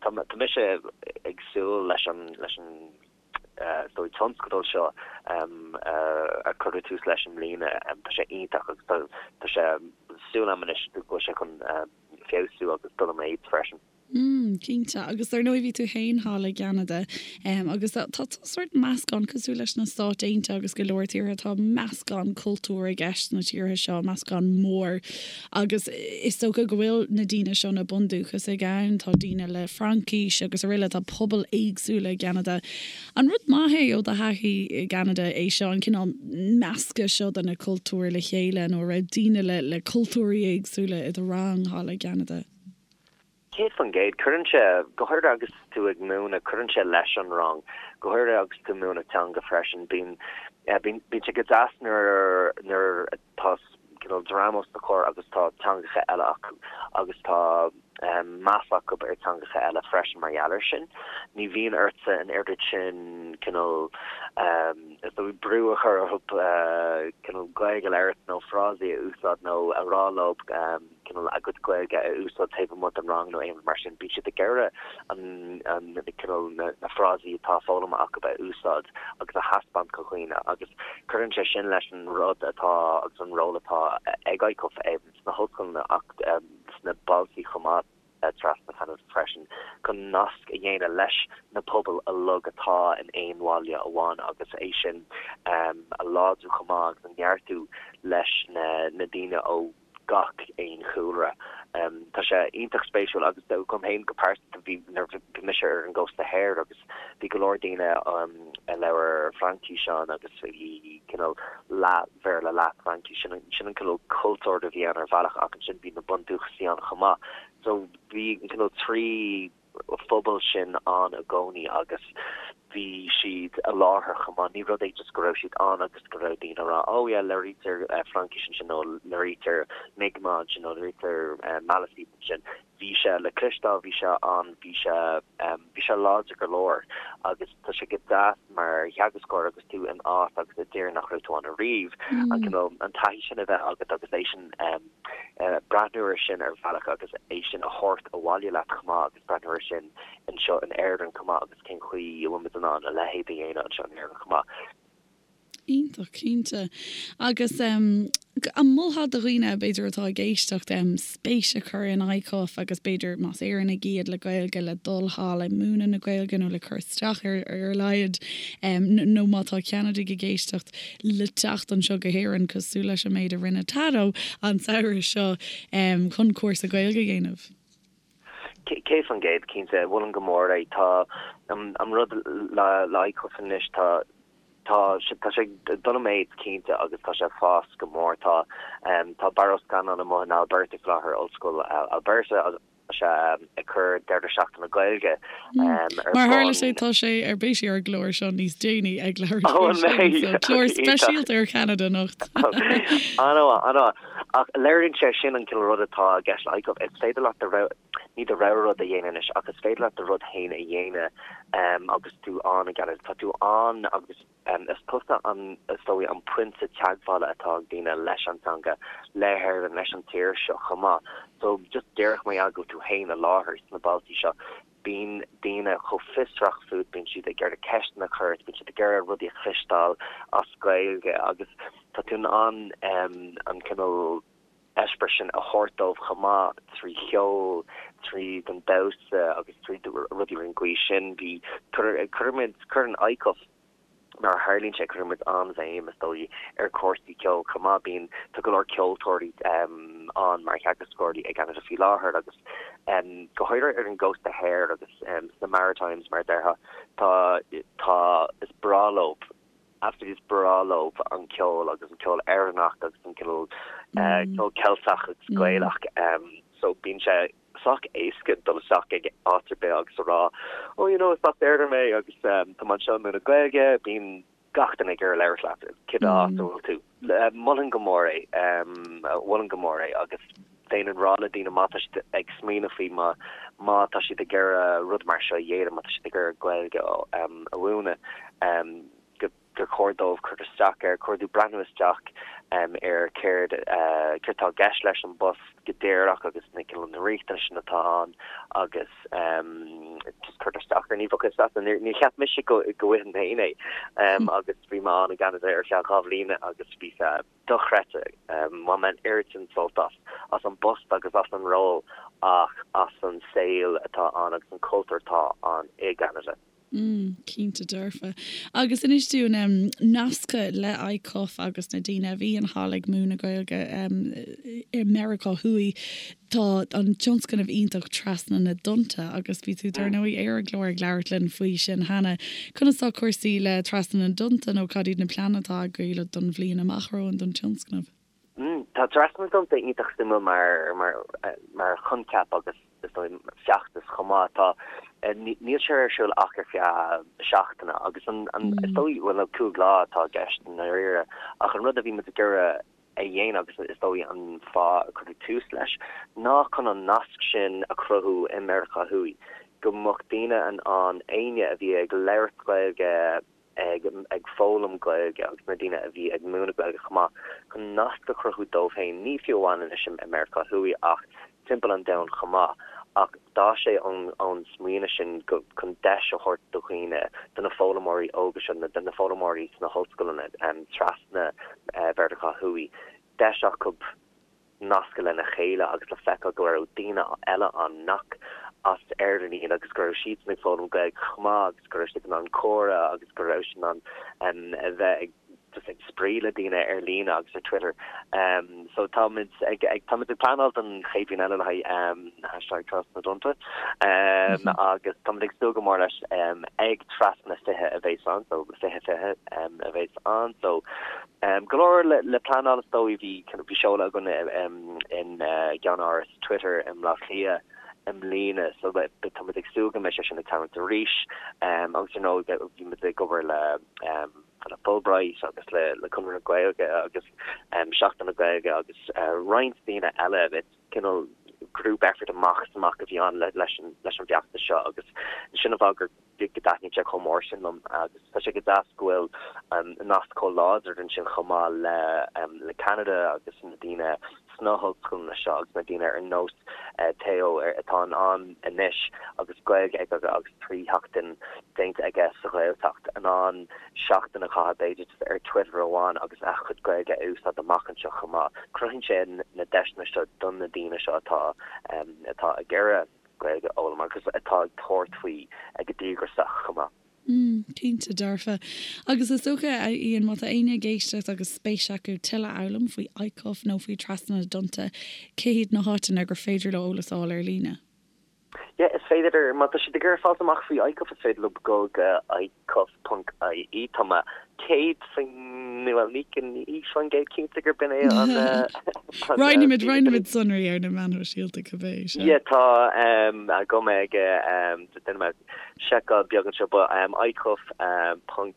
tá mise ag súil leis an, leis an is dóigh tionscadal seo a cuireadh tús leis i mbliana. Tá sé iontach agus tá, tá sé, súil agam anois go bhfuil sé chun feabhsú agus dul i méid freisin. Mm, cinnte. Agus dar ndóigh bhí tú féin thall i gCeanada agus tá tá sórt meascán cosúil leis na Stáit Aontaithe agus go leor tíortha, tá meascán cultúr i gceist sna tíortha seo, meascán mór. Agus is dócha go bhfuil na daoine seo, na bundúchasaigh ann, tá daoine le Fraincis agus araile, tá pobail éagsúla i gCeanada. An rud maith é ó do thaithí i gCeanada é seo, an cineál meascadh seo de na cultúir le chéile nó an raibh daoine le le cultúirí éagsúla i do rang thall i gCeanada? 100%. Cuireann sé, go háirithe agus tú ag múineadh, cuireann sé leis an rang, go háirithe agus tú ag múineadh teanga freisin. Bíonn, bíonn, bíonn sé go deas nuair, nuair atá cineál dream os do chomhair agus tá teangacha eile acu agus tá meas acu ar teangacha eile freisin mar gheall air sin. Ní bhíonn ortsa an oiread sin cineál. Is dóigh brú a chur orthu cineál Gaeilge a labhairt nó frásaí a úsáid nó a rá leo cineál a gcuid Gaeilge a úsáid taobh amuigh den rang nó aon rud mar sin. Bíonn siad ag iarraidh an cineál na frásaí atá foghlamtha acu a úsáid agus a thaispeáint do dhaoine agus cuireann sé sin leis an rud atá agus an ról atá ag ICUF sna hollscoileanna ach sna bailte chomh maith. trasna Cheanada freisin chun nasc a dhéanamh leis na pobail uilig atá in aon bhaile amháin agus é sin a láidriú chomh maith agus a neartú leis na daoine ó gach aon chúlra. Tá sé iontach spéisiúil agus dom féin go pearsanta bhí nuair a bhí mise ar an gcósta thoir agus bhí go leor daoine a labhair Fraincis ann agus bhí cineál leath Bhéarla leath Fraincis, sin an cineál cultúr a bhí ann ar bhealach ach ansin bhí na bundúchasaigh ann chomh maith. So bhí an cineál 3 phobal sin ann i gcónaí agus bhí siad i láthair chomh maith. Ní rud é just go raibh siad ann agus go raibh daoine ag rá oh yeah labhraítear Fraincis ansin nó labhraítear Mi'kmaq ansin nó labhraítear Maliseet ansin. Bhí sé le cloisteáil, bhí sé ann, bhí sé, bhí sé láidir go leor agus tá sé go deas mar theagascóir agus tú in áit agus i dtír nach raibh tú ann ariamh, an cineál, an taithí sin a bheith agat agus é sin, breathnú air sin ar bhealach agus é sin a thabhairt abhaile leat chomh maith agus breathnú air sin anseo in Éirinn chomh maith agus cén chaoi a bhfuil muid in ann a leithéid a dhéanamh anseo in Éirinn chomh maith. Iontach, cinnte. Agus an molfá do dhaoine, b'fhéidir, atá ag éisteacht, spéis a chur in ICUF agus b'fhéidir, más Éireannaigh iad le Gaeilge, le dul thall ag múineadh na Gaeilge nó le cur isteach air ar a laghad, nó má tá Ceanadaigh ag éisteacht, le teacht anseo go hÉirinn, cosúil leis an méid a rinne Tado an samhradh seo, chun cúrsa Gaeilge a dhéanamh? 100%, cinnte. Mholfainn go mór é. Tá an rud le ICUF anois, tá Tá sé tá sé ag dul i méid cinnte agus tá sé ag fás go mór. Tá tá Barra Ó Scanláin amuigh in Alberta faoi láthair, Ollscoil Alberta agus tá sé ag cur deireadh seachtaine Gaeilge ar Mar a tharla sé tá sé ar beidh sé ar an gclár seo níos déanaí ag labhairt faoi sin, so clár speisialta ar Cheanada anocht. An-mhaith, an-mhaith. Ach léiríonn sé sin an cineál rud atá i gceist le ICUF. Is féidir leat do rogha, ní do rogha rud a dhéanamh anois ach is féidir leat do rud féin a dhéanamh agus tú ann i gCeanada. Tá tú ann agus is tusa an, is dóigh, an pointe teagmhála atá ag daoine leis an teanga, le hÉirinn, leis an tír seo chomh maith. So just díreach mar gheall go bhfuil tú féin i láthair sna bailtí seo, bíonn daoine chomh fiosrach fút, bíonn siad ag iarraidh ceisteanna a chur ort, bíonn siad ag iarraidh rudaí a chloisteáil as Gaeilge agus tá tú in ann an cineál eispéireas sin a thabhairt dóibh chomh maith trí cheol, tríd an damhsa agus trí rudaí ar an gcaoi sin. Bhí, cuirimid, cuireann ICUF, mar a tharlaíonn sé, cuireann muid an-bhéim, is dóigh, ar chúrsaí ceoil chomh maith. Bíonn, tá go leor ceoltóirí ann mar theagascóirí i gCeanada faoi láthair agus go háirithe ar an gcósta thoir agus sna Maritimes, mar a déarfá, tá, tá, is breá leo, absolutely is breá leo an ceol agus an ceol Éireannach agus an cineál ceol Ceilteach agus Gaelach. So bíonn sé. sách éasca dul isteach ag áit ar bith agus a rá oh you know is as Éirinn mé agus tá mé anseo ag múineadh Gaeilge, bíonn gach duine ag iarraidh labhairt leat cibé áit a bhfuil tú. Mholfainn go mór é, mholfainn go mór é agus bheinn ag rá le daoine má tá siad ag smaoineamh faoi má má tá siad ag iarraidh rud mar seo a dhéanamh, má tá siad ag iarraidh Gaeilge a mhúineadh go gur chóir dóibh cur isteach air, chóir dóibh breathnú isteach ar céard céard atá i gceist leis an bpost go díreach agus na cineál na riachtanais sin atá ann agus just cur isteach air. Ní bheadh fhios agat, níor cheap mise go go bhfaighinn féin é agus bhí mé ann i gCeanada ar feadh 2 bhliana agus bhí sé dochreidte. Bhain mé an oiread sin sult as, as an bpost agus as an ról ach as an saol atá ann agus an cultúr atá ann i gCeanada. Mm, cinnte dearfa. Agus inis dúinn, em, nasctha le ICUF agus na daoine a bhíonn thall ag múineadh Gaeilge, em, i Meiriceá Thuaidh, tá an tionscnamh iontach Trasna na dTonnta agus bhí tú dar ndóigh ar an gclár ag labhairt linn faoi sin cheana. Conas tá cúrsaí le Trasna na dTonnta nó cad iad na pleananna atá agaibh don bhliain amach romhainn don tionscnamh? Tá Trasna na dTonnta iontach suimiúil mar mar mar choincheap agus is dóigh feachtas chomh maith. Tá níl sé ar siúl ach ar feadh seachtaine agus an an is dóigh bhuel 5 lá atá i gceist i ndáiríre ach an rud a bhí muid ag iarraidh a dhéanamh agus is dóigh an fáth a cuireadh tús leis ná chun an nasc sin a chruthú i Meiriceá Thuaidh go mbeadh daoine in ann éinne a bhí ag labhairt Gaeilge. ag ag foghlaim Gaeilge agus na daoine a bhí ag múineadh Gaeilge chomh maith chun nasc a chruthú dóibh féin, ní fiú amháin anois i Meiriceá Thuaidh ach timpeall an domhain chomh maith. Ach d'fhás sé ón ón smaoineamh sin go chun deis a thabhairt do dhaoine, do na foghlaimeoirí óga seo, do na foghlaimeoirí sna hollscoileanna trasna Mheiriceá Thuaidh, deis acu nascadh lena chéile agus le feiceáil go raibh daoine eile ann nach as Éirinn iad agus go raibh siadsan ag foghlaim Gaeilge chomh maith agus go raibh siad in ann comhrá agus go raibh siad in ann a bheith ag just ag spraoi le daoine ar líne agus ar Twitter. So táimid ag ag táimid ag pleanáil don chéad bhliain eile le haghaidh hashtag Trasna na dTonnta agus táimid ag súil go mór leis ag Trasna 20 a bheas ann so 20 20 a bheas ann so Go leor le pleanáil is dóigh. Bhí bhí seoladh againn in gceannáras Twitter i mBleá Cliath i mbliana so tá muid ag súil go mbeidh sé sin ag tarlúint arís. Agus ar ndóigh bhí muid ag obair le le Fulbright agus le le Conradh na Gaeilge agus Seachtain na Gaeilge agus roinnt daoine eile. Cineál group effort amach is amach a bhí ann leis an leis an bhfeachtas seo agus sin an fáth gur go dtaitníonn sé chomh mór sin liom agus tá sé go deas go bhfuil nasc chomh láidir ansin chomh maith le le Ceanada agus na daoine sna hollscoileanna seo agus na daoine ar nós Theo atá in ann anois agus Gaeilge aige agus 3 sheachtain déanta aige sa Ghaeltacht in ann seachtain a chaitheamh b'fhéidir ar Twitter amháin agus a chuid Gaeilge a úsáid amach anseo chomh maith. Cruthaíonn sé na deiseanna seo do na daoine seo atá atá ag iarraidh Gaeilge a fhoghlaim agus atá ag tabhairt faoi go díograiseach chomh maith. Mm, cinnte dearfa. Agus is dócha, a Ian, má tá éinne ag éisteacht agus spéis acu tuilleadh a fhoghlaim faoi ICUF nó faoi Trasna na dTonnta, cé hiad na háiteanna gur féidir leo eolas a fháil ar líne? Yeah, is féidir, má tá siad ag iarraidh fáilt amach faoi ICUF, is féidir leo dul go icuf.ie. Tá mé 100%, bhuel, ní 100% cinnte gurb in é an. Roinnfimid, roinnfimid sonraí ar na meáin shóisialta cibé, sea. Yeah, tá agam ag, déanfaidh mé seiceáil beag anseo, but icuf.ie.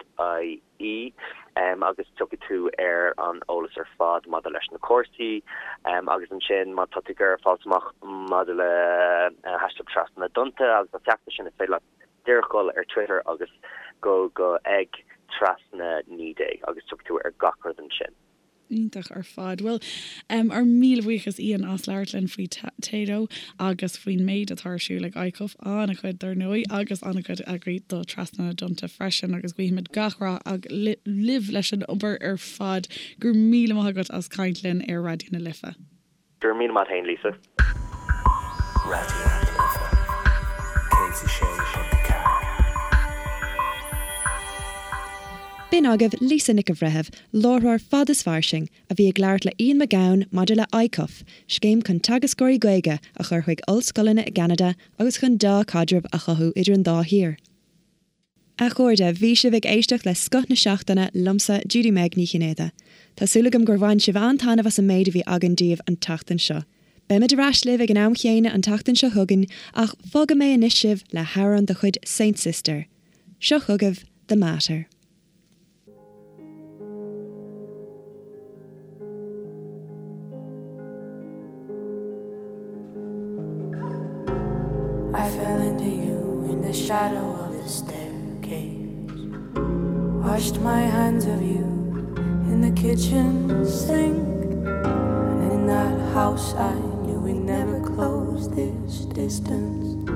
agus tiocfaidh tú ar an eolas ar fad maidir leis na cúrsaí agus ansin má tá tú ag iarraidh fáilt amach maidir le hashtag Trasna na dTonnta agus an feachtas sin is féidir leat díreach dul ar Twitter agus go go ag trasna 19 agus tiocfaidh tú ar gach rud ansin. Iontach ar fad. Bhuel, ár míle buíochas Ian as labhairt linn faoi Tayto agus faoin méid atá ar siúl ag ICUF, an-chuid dar ndóigh, agus an-chuid eagraithe do Trasna na dTonnta freisin agus guímid gach rath libh leis an obair ar fad. Go raibh míle maith agat as caint linn ar Raidió na Life. Go raibh míle maith agat féin, Lisa. Raidió na Life 106.4. B'in agaibh Lisa Nic an Bhreithimh, láithreoir Fad is Fairsing, a bhí ag labhairt le Ian McGowan maidir le ICUF, scéim chun teagascóirí Gaeilge a chur chuig ollscoileanna i gCeanada agus chun dea-chaidreamh a chothú idir an dá thír. A chairde, bhí sibh ag éisteacht le Scoth na Seachtaine liomsa, Judy Meg Ní Chinnéide. Tá súil agam gur bhain sibh an-taitneamh as an méid a bhí againn daoibh an tseachtain seo. Beimid ar ais libh ag an am chéanna an tseachtain seo chugainn ach fágfaidh mé anois sibh le hamhrán de chuid Saint Sister. Seo chugaibh The Mater. I fell into you in the shadow of the staircase Washed my hands of you in the kitchen sink And in that house I knew we never closed this distance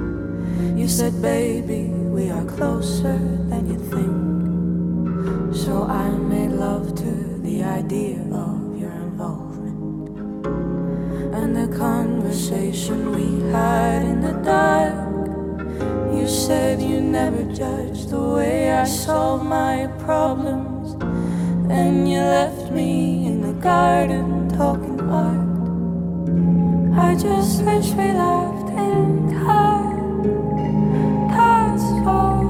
You said baby we are closer than you think So I made love to the idea of your involvement And the conversation we had in the dark You said you never judged the way I solve my problems Then you left me in the garden talking art I just wish we laughed in time That's all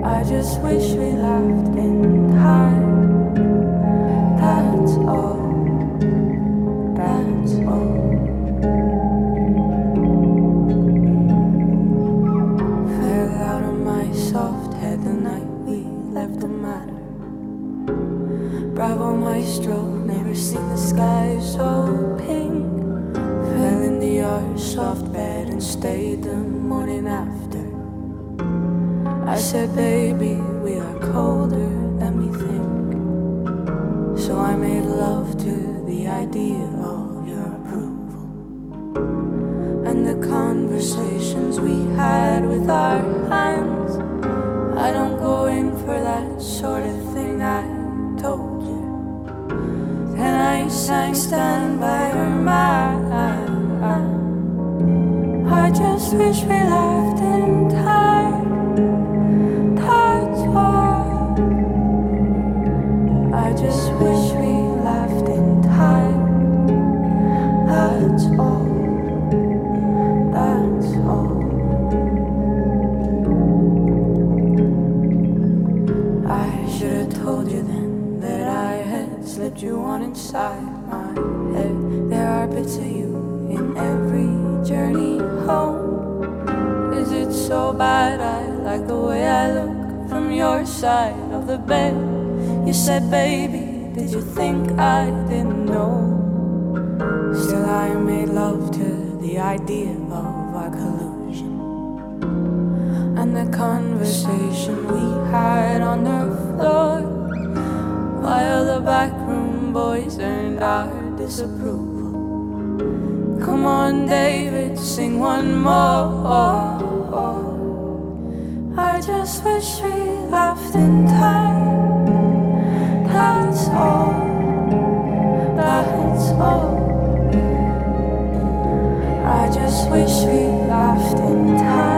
I just wish we laughed in time That's all That's all Fell out of my soft head the night we left the matter Bravo maestro, never seen the sky so pink Fell in the our soft bed and stayed the morning after. I said, baby, we are colder than we think. So I made love to the idea of your approval. And the conversations we had with our hands. I don't go in for that sort of thing, I told you. And I sang stand by her man. I just wish we laughed in time. That's all. I just wish we laughed in time. That's all. That's all. I should have told you then that I had slipped you on inside my head. There are bits of you in every journey home. Is it so bad I like the way I look from your side of the bed? You said, baby, did you think I didn't know? Still I made love to the idea of our collusion and the conversation we had on the floor while the backroom boys earned our disapproval. Come on, David, sing one more. I just wish we laughed in time. That's all. That's all. I just wish we laughed in time.